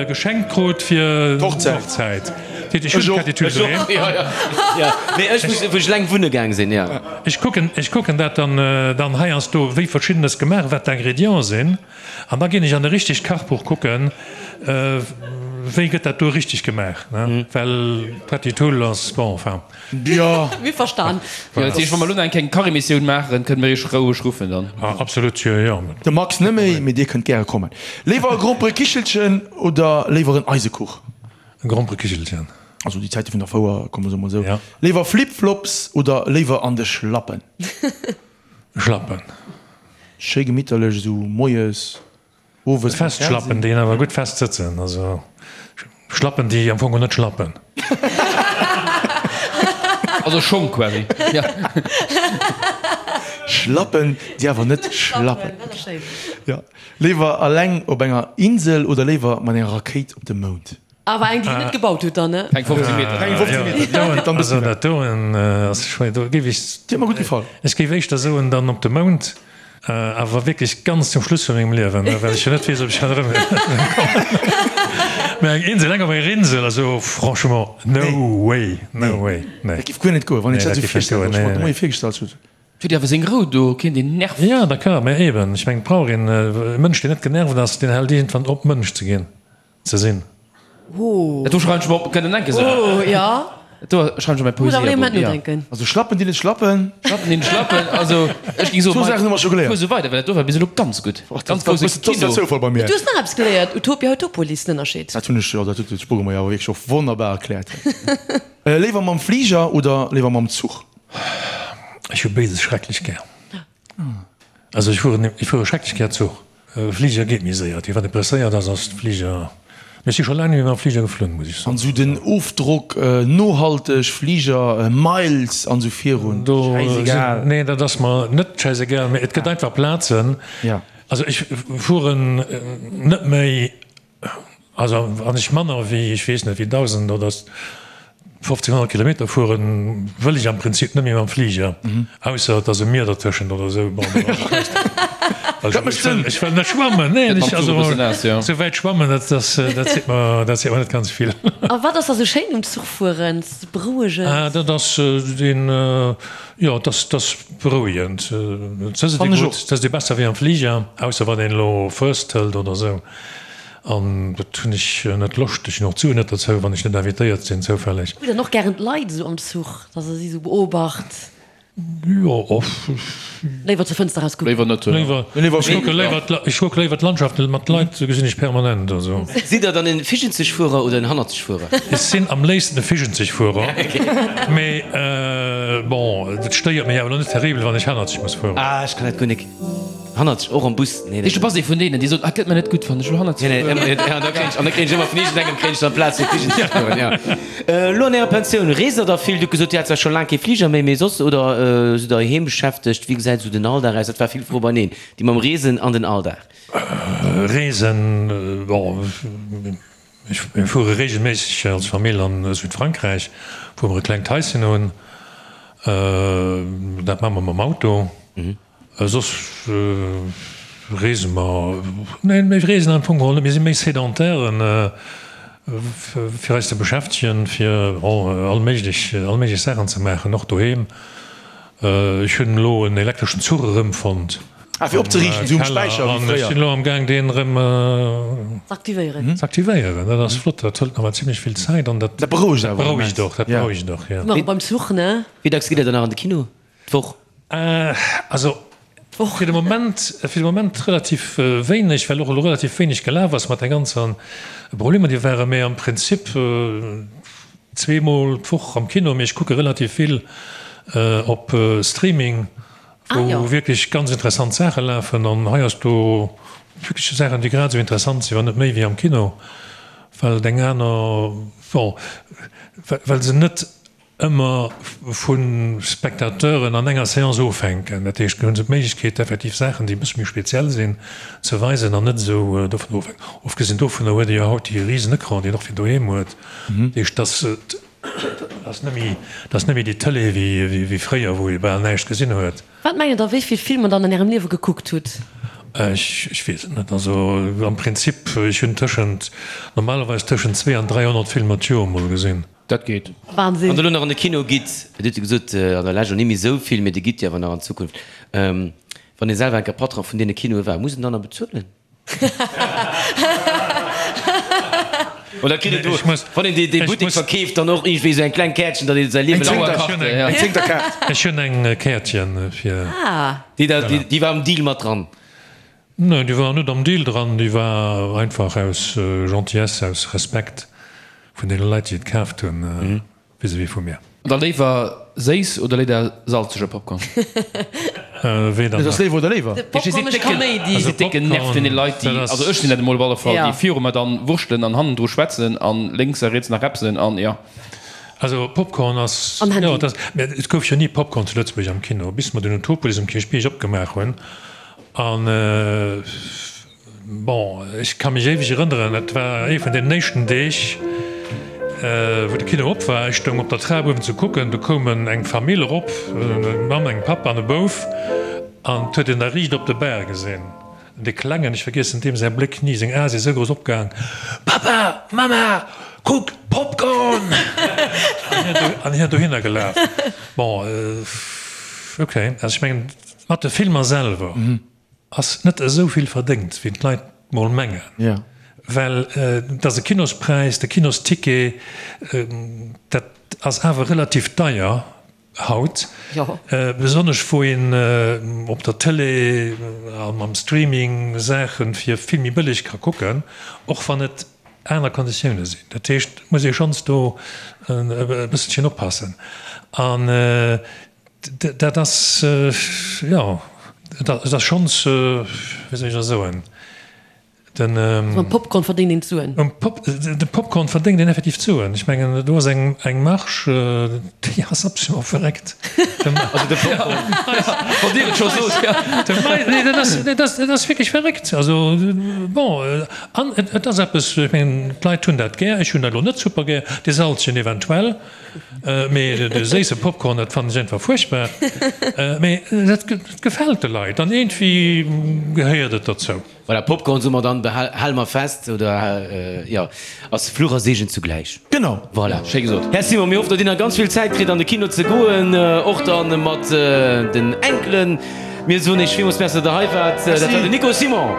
geschenkt krut fir d'Hochzäit. Dat heescht, ech hunn d'Kätti Thull doheem. Mee ech muss, wou ech eleng wunne gaang sinn, jo. Ech kucken, ech kucken dat dann, dann heiansdo, wéi Verschiddenes gemaach, wat d'Ingrédienten sinn. An da ginn ech an e richtegt Kachbuch kucken, wéi gëtt dat do richteg gemaach, well d'Kätti Thull ass, bon, enfin. Jo. Mir verstan. Jo, dat heescht, wa mer elo nach eng kleng Kachemissioun maachen, kënne mir iech roueg ruffen dann. Absolut, jo, jo. De Max net méi, mee dir kënnt gäre kommen. Léiwer e Gromperekichelchen oder léiwer en Eisekuch? E Gromperekichelchen. Also déi Zäite vun der Fouer, komme soe mol esou. Ja. Léiwer Flip-Flops oder léiwer an de Schlappen? Schlappen. Schéi gemitterlech esou moies. Owes beim Fest Schlappen, déi awer gutt fest sëtzen, also Schlappen, déi am Fong och net schlappen. Also Schong quasi. Schlappen, déi awer net schlappen. Jo. Léiwer alleng op enger Insel oder léiwer mat enger Rakéit op de Mound? Awer eng, déi en net gebaut huet dann, ne? Eng 15 Meter. Eng 15 Meter, déi geet dann e bëssen Also dat doen ass schwéier. Do géif ech. Déi huet mer gutt gefall. Ech géif éischter soen dann op de Mound, awer wierklech ganz zum Schluss vu mengem Liewen, well ech jo net weess, ob ech dann erëm kommen. Mä eng Insel, eng op enger Insel, also franchement, no way, no way, nee. Dat géif guer net goen, wann een sech dat esou virstellt, wat ech mer de Moie virgestallt hunn. Huet awer seng Rou do, keen deen nervt. Jo, d'accord, mä eben, ech mengen, et brauch een e Mënsch, deen net genervt ass, deen hält iergendwann op, Mënsch ze ginn. Ze sinn. Oh. Dat do schreiwen ech mer op, kënnt en enke sou. Oh, ja. Dat do schreiwen ech op mäi Muss awer ee Poesiealbum, Moment ja. nodenken. Also Schlappen déi net schlappen. Schlappen déi net schlappen, also ech géing soen, Zwou Saachen hu mer scho geléiert. Fuer sou weider, well dat do war bis elo ganz gutt. Och dat Ganz war grousse bëssen dat Kino. Zoufall bei mir. Du hues nach eppes geléiert, Utopia, Utopolis, den Ënnerscheed. Dat hunn ech, jo, dat huet de Spogel mer jo awer wierklech och wonnerbar erkläert. Léiwer mam Fliger oder léiwer mam Zuch? Ech hu béides schrecklech gär. Also ech fueren, ech fuere schrecklech gär Zuch. Fliger geet méi séier. Wann ee presséiert ass, ass de Fliger. Mee ech si scho laang net méi mam Fliger geflunn, muss ech soen. An esou den Ofdrock, nohalteg, Fliger, Miles an esou virun, schäisegal. Nee, dat ass mer net schäisegal, mee et gëtt einfach Plazen. Also ech fueren net méi. Also wann ech manner wéi, ech weess net, wéi 1.000 oder 1.500 Kilometer fueren, wëll ech am Prinzip net méi mam Fliger, ausser et ass e Mier dertëschent oder esou. Bon, dann ass et meeschtens. Dat mécht Sënn. Ech wëll net schwammen, neen, ech, also esou wäit schwammen, dat ass, dat seet mer, dat seet mer net ganz vill. A wat ass da sou schéin um Zuchfueren? Berouegend? Ah, dat ass deen, jo, dat ass, dat ass berouegend. Et sëtzt ee gutt, et sëtzt ee besser wéi am Fliger, ausser wann een elo First hëlt oder esou. An dat hunn ech net Loscht. Ech hunn och d'Suen net dozou, wann ech net invitéiert sinn, zoufälleg. Hutt Der och gären d'Leit esou am Zuch, dass Der si esou beobacht? Jo, och. Léiwer zur Fënster raus kucken? Léiwer net. Léiwer, ech kucke léiwer, ech kucke léiwer d'Landschaft, mä d'Leit gesinn ech permanent, also. Sidd Der dann en Fischenzegfuerer oder en Hannerzegfuerer? Ech sinn am léifsten e Fischenzegfuerer, mee bon, et stéiert mech awer elo net terribel, wann ech hannerzeg muss fueren. Ah, ech kann dat guer nik. Hannerzeg, och am Bus? Nee, nee. Du bass ee vun deenen, déi soen, ah, gëtt mer net gutt, wann ech elo hannerzeg fueren. Nee, nee, an da kréien ech, an da kréien ech ëmmer vun iergendengem kréien ech dann d'Plaz fir Fligen ze fueren, jo. Elo an Ärer Pensioun, reest Der da vill? Dir hutt gesot, Dir hat zwar scho laang kee Fliger méi, mee soss, oder sidd Der heiheem beschäftegt? Wéi gesäit esou den Alldag aus? Dat war vill Fro beineen, déi mam Reesen an den Alldag. Reesen, bon, ech, mir fuere reegelméisseg als Famill an Südfrankräich, wou mer e klengt Haischen hunn. Dat maache mer mam Auto. Soss reese mer, nee mir reesen am Fong geholl net, mir si méi Sédentairen, fir eis ze beschäftegen, fir all méiglech, all méiglech Saachen ze maachen, och doheem. Ech hunn elo en elektreschen Zuch erëmfonnt. Ah, fir opzeriichten, esou um Späicher wéi fréier. Ech sinn elo am Gaang deen erëm z'aktivéieren. Z'aktivéieren, dat ass flott, dat hëlt nawell zimlech vill Zäit an dat berouegt awer. Berouegt och, dat berouegt och, jo. Nach beim Zuch, ne? Wéi dacks gitt Der dann nach an de Kino d'Woch? Also fir de Moment, fir de Moment relativ wéineg, well och elo relativ wéineg gelaf ass mat de ganzen Problemer, déi waren. Mee am Prinzip zweemol d'Woch am Kino. Mee ech kucke relativ vill op Streaming, wou wierklech ganz interessant Saache lafen. An heiansdo wierklech Saachen, déi grad esou interessant sinn, wann net méi, wéi am Kino, well et eng aner, bon, well se net ëmmer vu Spectateuren an enger Seance ofhänken. Dat heescht, do hu se d'Méiglechkeet, effektiv Saachen, déi e bësse méi speziell sinn, ze weisen an net esou dovun ofhänken. Ofgesinn dovunner huet ee jo haut dee risen Ecran, deen och fir doheem huet. Dat heescht, dass ass net méi, dat ass net méi déi Tëlee wéi fréier, wou ee bal näischt gesinn huet. Wat mengt der, wéi vill Filmer der an ärem Liewe gekuckt hutt? Ech weess et net. Also am Prinzip, ech hunn tëschent, normalerweis tëschent 2 an 300 Filmer d'Joer mol gesinn. Dat geet. Wahnsinn. Wann Der elo nach an de Kino gitt, Dir hutt jo gesot, an der Lescht elo net méi esou vill, mee Dir gitt jo awer nach an Zukunft, wann ee selwer enker Patron vun deene Kinoe war, muss en dann nach bezuelen? Oder kritt een do, wann een dee Buttek verkeeft, dann och iergendwéi esou eng kleng Käertchen, datt ee säi Liewe laang. Eng Zéngterkaart. Ech hunn eng Käertchen fir. Déi war am Deal mat dran? Nee, déi war net am Deal dran. Déi war einfach aus Gentillesse, aus Respekt vun deene Leit, déi et kaaft hunn. Vis-à-vis vu mir. Da léiwer séiss oder léider salzege Popcorn? Weder Et ass nach. léiwer oder léiwer? De Popcorn mécht Kaméidi. Ech si décken Nerv vun den Leit déi, also ech sinn dat emol op alle Fall, déi viru mer dann wurschtelen an hannendru schwätzen an lénks a riets nach repsen an jo. Also Popcorn ass, An Handy. jo, dat, mä et gouf jo ni Popcorn zu Lëtzebuerg am Kino, bis mer den Utopolis um Kierchbierg opgemaach hunn an. Bon, ech ka mech éiweg erënneren, et war ee vun deenen éischten Deeg, wou de Kino op war. Ech stoung op der Trap uewen ze kucken, do koum eng Famill erop, eng Mamm, eng Papp an e Bouf, an 't huet een da riicht op de Bar gesinn, dee Klengen, ech vergiessen deem säi Bléck ni, seng Ae si sou grouss opgaang, Papa, Mamma, kuck, Popcorn! An hien dohinner gelaf. Bon, ok, also ech mengen, mat de Filmer selwer. Ass net esou vill verdéngt wéi d'Leit mol mengen, well et ass e Kinospräis, de Kinosticket, dat ass awer relativ deier haut, besonnesch wou een op der Tëlee a mam Streaming Saache fir vill méi bëlleg ka kucken, och wann et aner Konditioune sinn. Dat heescht, et muss ee schonns do e bësselchen oppassen. An Dat ass, jo, et ass schonns, wéi soll ech da soen, den. Also mam Popcorn verdéngt een d'Suen. De Popcorn verdéngt een effektiv d'Suen. Ech mengen, do ass eng Marge, déi ass absolument verréckt. Also de Popcorn, wann Dir et scho sot, jo. Nee, dat ass, dat ass, dat ass wierklech verréckt. Also, bon, an et ass eppes, ech mengen, d'Leit hunn dat gär. Ech hunn dat elo net super gär, dee Salzchen eventuell. Mee de séisse Popcorn, dat fannen ech einfach fuerchtbar. Mee dat gefält de Leit an iergendwéi gehéiert et derzou. Voilà, Popcorn soe mer dann, hale mer fest, oder jo, ass Fluch a Seegen zugläich. Genau. Voilà. Schéi gesot. Här Simon, mir hoffen, datt Dir nach ganz vill Zäit kritt an de Kino ze goen, och dann mat den Enkelen. Mir soen Iech villmools Merci, datt Der hei waart. Dat war den Nico Simon.